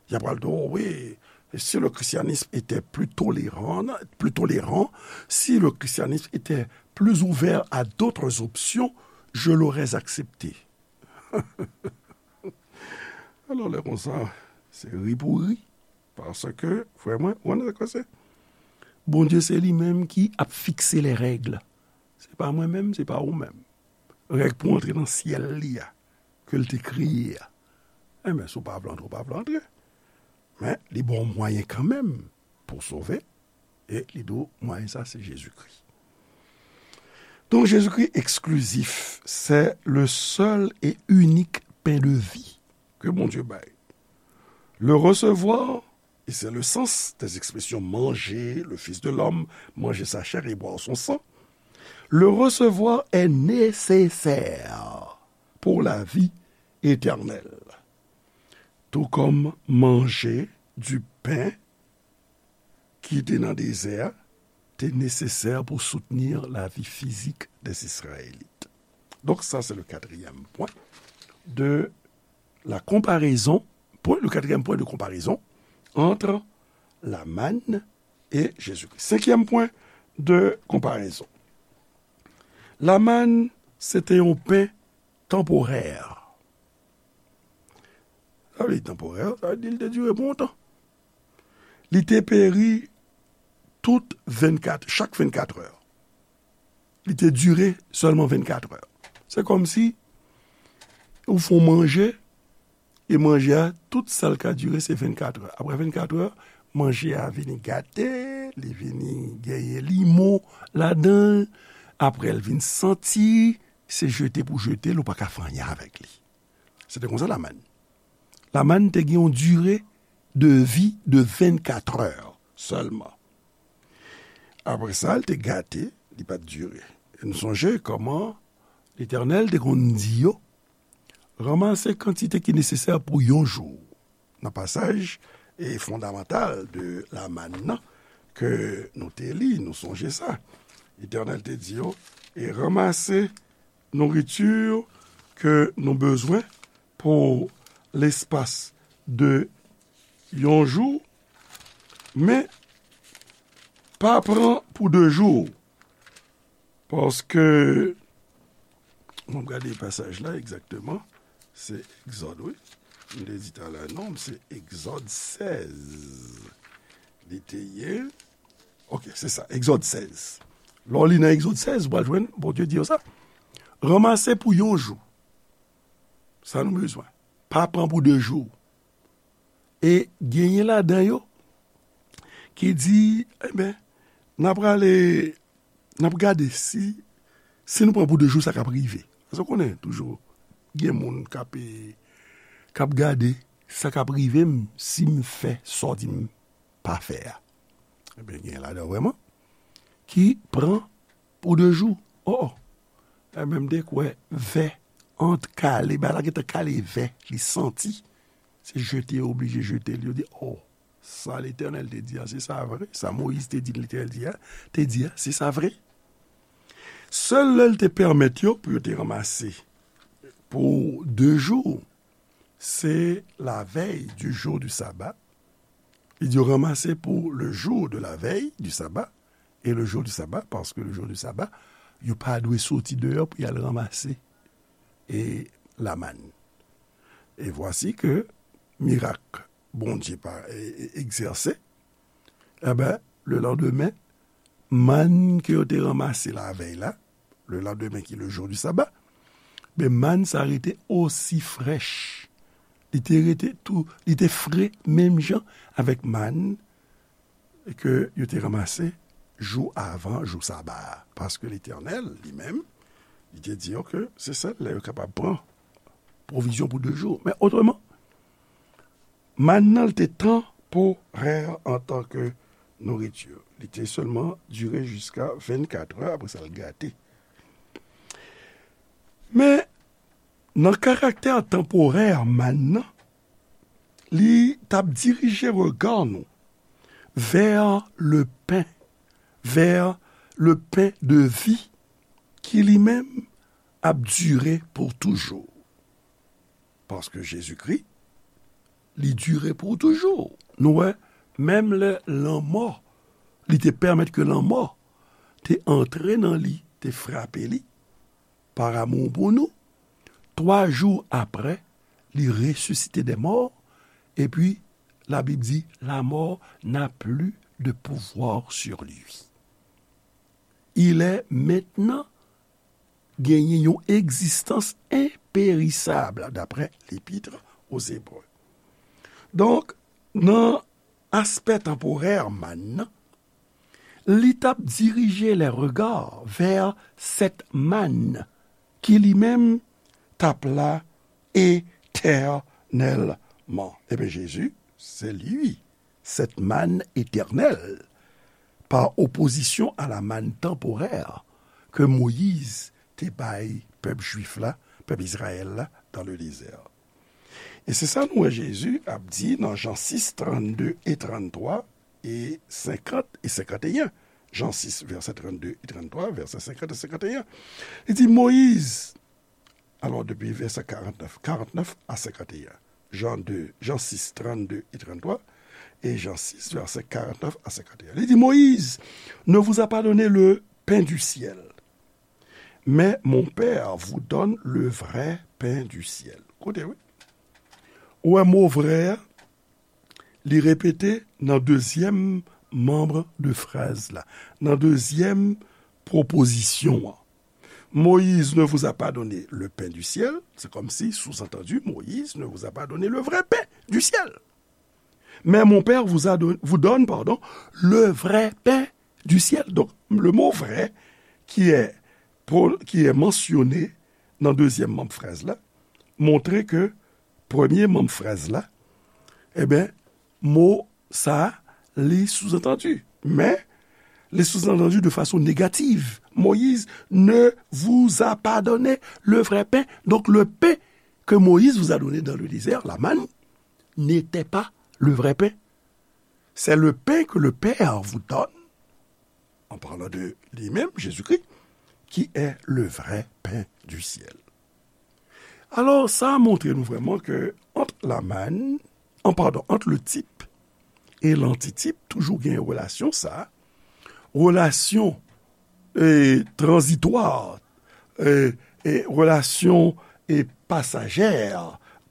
y ap pral di w, oh wi, si le christianisme était plus tolérant, plus tolérant, si le christianisme était plus ouvert à d'autres options, je l'aurais accepté. Alò, lè konsa, se ri pou ri. Paske, frè mwen, ou konn sa k pase? Bondye se li menm ki ap fikse les règles. Se pa mwen menm, se pa ou menm. Règ pou antre nan syèl li a, ke l te kreye a. Enben, si w pa vle antre, w pa vle antre. Men, li ba w mwayen kanmenm pou w sove. E li di w, mwayen sa, se Jezikri. Donk, Jezikri eksklizif, c'est le seul et unique pain de vie que Bondye bay. Le recevoir, et c'est le sens des expressions manger le Fils de l'homme, manger sa chair et boire son sang, Le recevoir est nécessaire pour la vie éternelle, tout comme manger du pain ki te nan dezè a te nesesè pou soutenir la vie physique des Israélites. Donc, ça, c'est le quatrième point de la comparaison, point, le quatrième point de comparaison entre la manne et Jésus-Christ. Cinquième point de comparaison. La manne, c'était un pain temporaire. Sa vle di temporaire, sa vle di li te dire pou yon tan. Li te peri tout vennkat, chak vennkat è. Li te dire sèlman vennkat è. Se kòmsi ou fon manje, e manje a, tout sa l ka dire, se vennkat è. Apre vennkat è, manje a vini gate, li vini genyen limon ladan l. Apre l vin santi, se jete pou jete l, ou pa ka fè anyen avèk li. Se te konsa la manne. La manne te gen yon dire de vi de vennkat è sèlman. Apre sa, l te gate, li pa t dire. E nou sonje kòman Letènèl te konn di yo, ranmase kantite ki nesesè pou yon jou. Nan pasaj e fondamantal de la manne nan ke nou te li, nou sonje sa. Letènèl te di yo, e ranmase nouriti ke nou bezwen pou lespas de yon jou, men pa pran pou de jou. Paske, m ap gade pasaj la egzakteman, se Egzòd, wi. M te di talè, non, se Egzòd sèz. Li te ye. Ok, se sa, Egzòd sèz. Lè w li nan Egzòd sèz, ou pral jwenn Bondye di yo sa. Ranmase pou yon jou. Sa nou bezwen. Pa pran pou de jou. E genyen ladan yo ki di, enben, n ap prale, n ap gade si, si nou pran pou de jou, sa k ap rive. Paske w konnen, toujou, gen moun k ap, k ap gade sa k ap rive m si m fè sa w di m pa fè a. Ebyen, gen ladan yo vrèman ki pran pou de jou. Oh, oh. Ebyen, m te kwè vè ant kale, bagay la gentan kale vè, li santi. Se jete, yo oblije jete l. Yo di, oh, sa Letènèl te di a, se sa vre. Sa Moyiz te di Letènèl di a, te di a, se sa vre. Sèl lè l te pèmèt yo pou yo te ranmase pou de jou, se la veille du jour du sabbat. Li di yo ranmase pou le jour de la veille du sabbat et le jour du sabbat, paske le jour du sabbat, yo pa dwe soti deyò pou y al ranmase e la manne. Et voici que mirak Bondye pa e, e, egzèse, enben, le landemen, mann ke yo te ranmase lavèy la, le landemen ki le jour du sabbat, ben, mann sa rete osi frèch. Li te rete tou, li te fre menm jan avèk mann ke yo te ranmase jou avan jou saba a. Paske Letènèl, li menm, li te di yo ke se sèl lè yo kapab pran pwovizyon pou de jou. Men otreman, mann nan, li te tanporè antanke nouriti. Li te sèlman dire jiska vennkat è, apre sa, l gate. Men, nan karaktè tanporè mann nan, li t ap dirije rega nou vè le pen, vè le pen de vi, ki li menm ap dire pou toujou. Paske Jezikri, li dire pou toujou. Nou wè, menm lè lanmò, li te pèmèt ke lanmò te antre nan li, te frape li, par amour pou nou, twa jou apre, li resisite dè mò, epi Labib di, la mort n'a plus de pouvoir sur lui. Il est maintenant genyen yon egzistans enperisab, daprè L'Épître aux Hébreux. Donk, nan aspè tanporè mann nan, li t ap dirije les regards vers cette manne ki li menm t ap la éternellement. Ebyen, Jezi, c'est lui, cette manne éternelle, par opposition à la manne temporaire ke Moyiz te bay pèp jwif la, pèp Izrayèl la, dans le désert. E se sa nou wè Jezi ap di nan Jan sis, trannde e tranntwa e senkant e senkanteyen. Jan sis, vèsè trannde e tranntwa, vèsè senkant e senkanteyen. Li di, Moyiz, alò depi vèsè karannèf, karannèf a senkanteyen. Jan de, Jan sis, trannde e tranntwa, e Jan sis, vèsè karannèf a senkanteyen. Li di, Moïse ne vous a pas donné le pain du ciel, mais mon Père vous donne le vrai pain du ciel. Koute, wi. Ou wè mo vrè a, li repete nan dezyèm manm de fraz la, nan dezyèm pwopozisyon an. Moïse ne vous a pas donné le pain du ciel, c'est comme si, sous-entendu, Moïse ne vous a pas donné le vrai pain du ciel. Mais mon Père vous a don- vous donne, pardon, le vrai pain du ciel. Donc, le mot vrai qui est, pro- qui est mentionné nan dezyèm manm fraz la, montre ke premye manm fraz la, e ben, mo sa, li sous-entendu. Men, li sous-entendu de façon négative. Moïse ne vous a pas donné le vrai pain. Donc, le pain que Moïse vous a donné dans le désert, la manne, n'était pas le vrai pain. C'est le pain que le Père vous donne, en parlant de lui-même, Jésus-Christ, qui est le vrai pain du ciel. Alò, sa a montre nou vrèman ke ant la manne, an, padon, ant le type e l'antitype, toujou gen relasyon sa, relasyon, e, tranzitwa, e, e, relasyon, e, pasajè,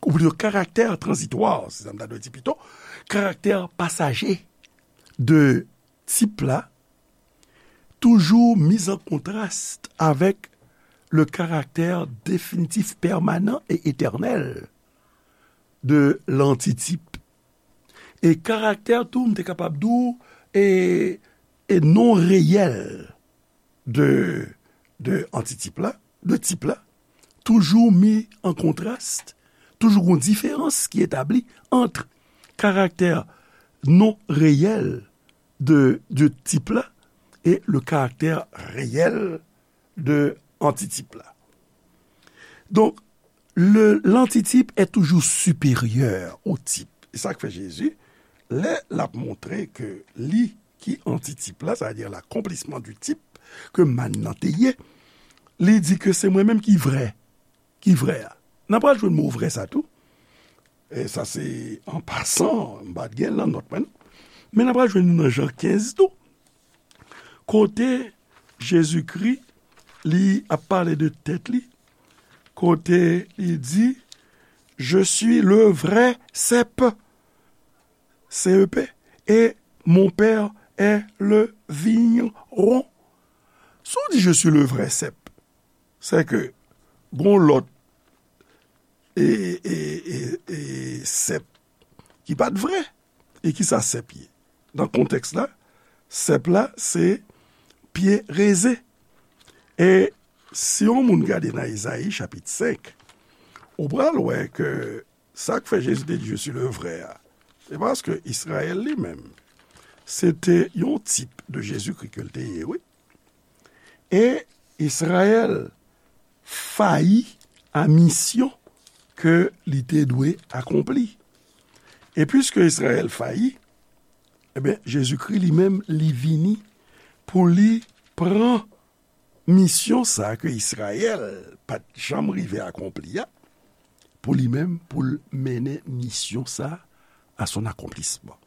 ou plito karaktè tranzitwa, se sa m ta dwe di pito, karaktè pasaje de type la, toujours mis en contraste avec le caractère définitif, permanent et éternel de l'antitype. E karaktè tou, m te kapab di w, e, e non reyèl de, de antitype la, de type la, toujours mis en contraste, toujours une différence qui est établie entre caractère non réel de, de type la et le caractère réel de antitype la. Donc, le, l'antitype est toujours supérieur au type. E sa k fè Jezi, lè l ap montre ke li ki antitip la, sa vle di l'accomplissement du type ke mann nan te ye, li di ke se mwen menm ki vrè, ki vrè a. N a pral jwenn mo vrè sa tou. E sa se an pasan, m pa t gen l nan nòt mwen, non. Men n a pral jwenn li nan Jan kenz tou. Kote Jezikri, li ap pale de tèt li, kote li di, Je suis le vrai cep, C E P, et mon père est le vigneron. Si w di, Je suis le vrai cep, se ke gon lòt e, e, e, e sèp ki pa t vrè. E ki sa sèp ye? Nan kontèks la, sèp la se pye rezen. E si yon moun gade nan Ezayi chapit senk, ou pral wè ke sa k fè Jezi te di, Je suis le vrai a, se paske Izrayèl li menm, se te yon tip de Jezikri ke l te ye, wi. E Izrayèl fayi a misyon ke li te dwe akonpli. E piske Izrayèl fayi, ebyen, Jezikri li menm, li vini pou li pran misyon sa a ke Izrayèl pa t janm rive akonpli a, pou li menm, pou l mennen misyon sa a à son accomplissement.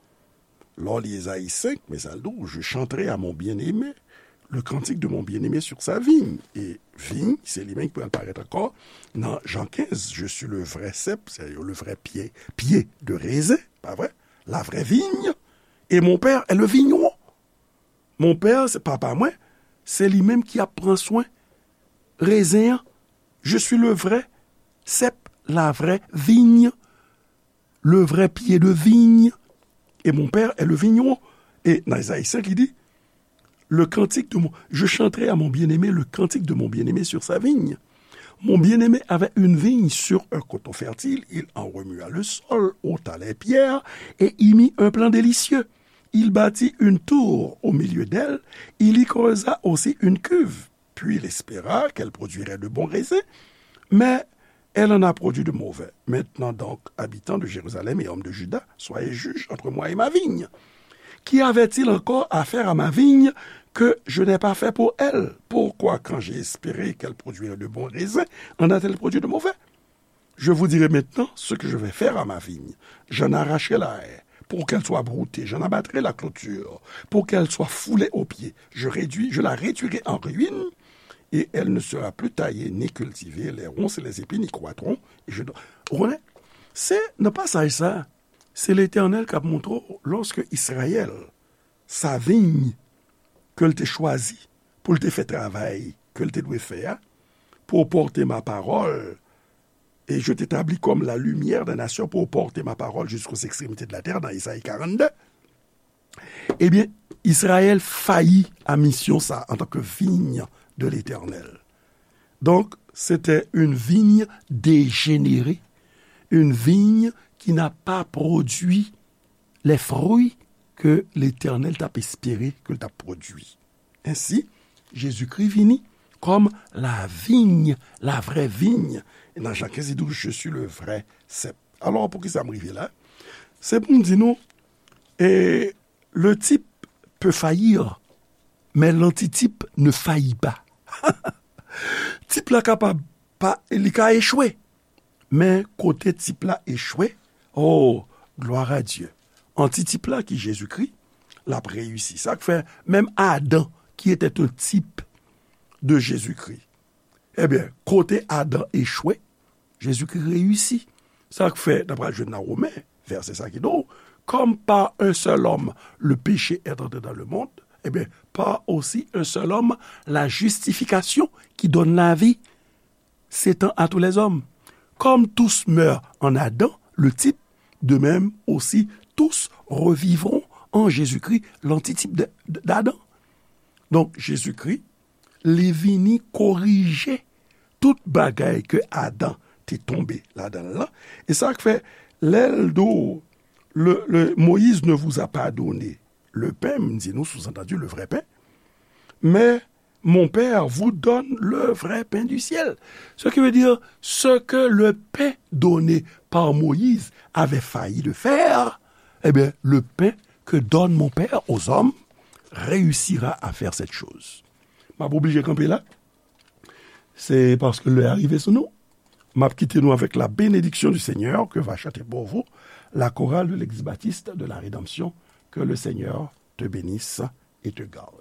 Lè w li Ezayi senk, men sa l di w, Je chanterai à mon bien-aimé le cantique de mon bien-aimé sur sa vigne. E vigne, se li menm ki pral parèt ankò nan Jan kenz, Je suis le vrai cep, c'est le vrai pied, pied de raisin, pa vre? La vraie vigne, et mon père est le vigneron. Mon père, se papa mwen, se li menm ki ap pran swen rezen an. Je suis le vrai cep, la vraie vigne, le vrai pied de vigne, et mon père est le vigneron. E nan Ezayi senk, li di, Le cantique de mon, je chanterai à mon bien-aimé le cantique de mon bien-aimé sur sa vigne. Mon bien-aimé avait une vigne sur un coteau fertile, il en remua le sol, ôta les pierres et y mit un plan délicieux. Il bâtit une tour au milieu d'elle, il y creusa aussi une cuve. Puis il espéra qu'elle produirait de bons raisins, mais elle en a produit de mauvais. Maintenant donc, habitants de Jérusalem et hommes de Juda, soyez juges entre moi et ma vigne. Qu'y avait-il encore à faire à ma vigne que je n'ai pas fait pour elle ? Pourquoi, quand j'ai espéré qu'elle produirait de bons raisins, en a-t-elle produit de mauvais ? Je vous dirai maintenant ce que je vais faire à ma vigne. J'en arracherai la haie, pour qu'elle soit broutée, j'en abattrai la clôture, pour qu'elle soit foulée aux pieds. Je réduis, je la réduirai en ruine, et elle ne sera plus taillée ni cultivée. Les ronces et les épines y croîtront, et je don-, Ou konnen, se nan pasaj sa, se Letènèl k ap montre w, lòske Izrayèl, sa viy ke l te chwazi pou l te fè travay ke l te dwe fè a, pour porter ma parole, et je t'établis comme la lumière des nations pour porter ma parole jusqu'aux extrémités de la terre, nan Ezayi karannde, ebyen, Izrayèl fayi a misyon sa antanke viy de Letènèl. Donc, c'était une vigne dégénérée, une vigne qui n'a pas produit les fruits que Letènèl t ap espere ke l t ap pwodui. Ensi, Jezikri vini kòm la vigne, la vraie vigne. E nan Jan kenz, li di w, Je suis le vrai cep. Alò, poukisa m rive la? Se pou m di nou, e, le type peut faillir, mais l'antitype ne faillit pas. Tip la kapab pa, li ka echwe. Men kote tip la echwe, oh, gloire à Dieu. Antitip la ki Jezikri, l ap reyisi. Sa k fè, menm Adan, qui était un type de Jésus-Christ, ebyen, kote Adan echwe, Jezikri reyisi. Sa k fè, n ap pral jwenn nan Women, vèsè sa ki di w, comme par un seul homme le péché est entré dans le monde, eh bien, par aussi un seul homme la justification qui donne la vie s'étend à tous les hommes. Comme tous meurent en Adam, le type, de même aussi tous revivront en Jésus-Christ, l'antitype de, de, d'Adam. Donk, Jezikri, li vini korije tout bagay ke Adan te tonbe ladan l lan. E sa k fè, lè l di w, le, le, Moïse ne vous a pas donné le pain, m di nou, sous-entendu, le vrai pain, mais mon Père vous donne le vrai pain du ciel. Ce qui veut dire, ce que le pain donné par Moïse avait failli de faire, eh bien, le pain que donne mon Père aux hommes réussira à faire cette chose. M ap oblije kanpe la. Se paske lè a rive sou nou. M ap kite nou avec la bénédiction du Seigneur que va chanter pour vous la chorale de l'Église baptiste de la Rédemption. Que le Seigneur te bénisse et te garde.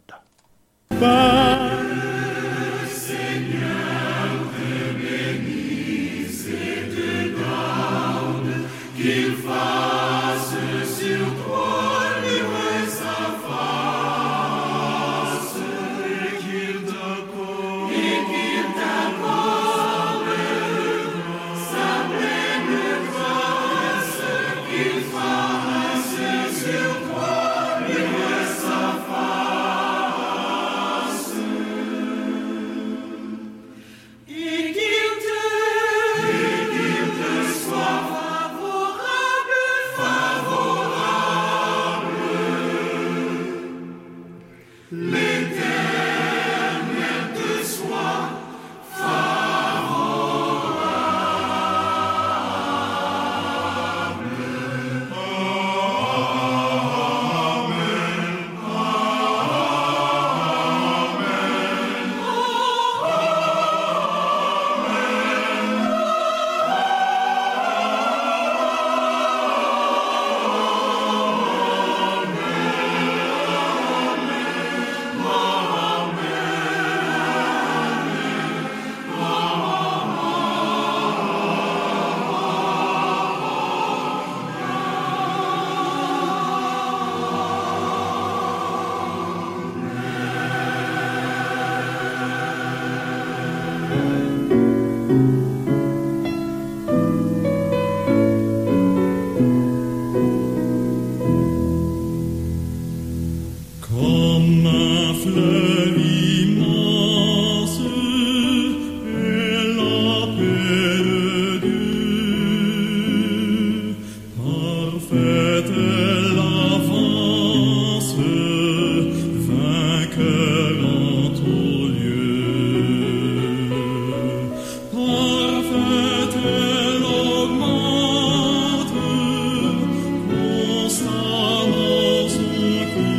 Comme un fleuve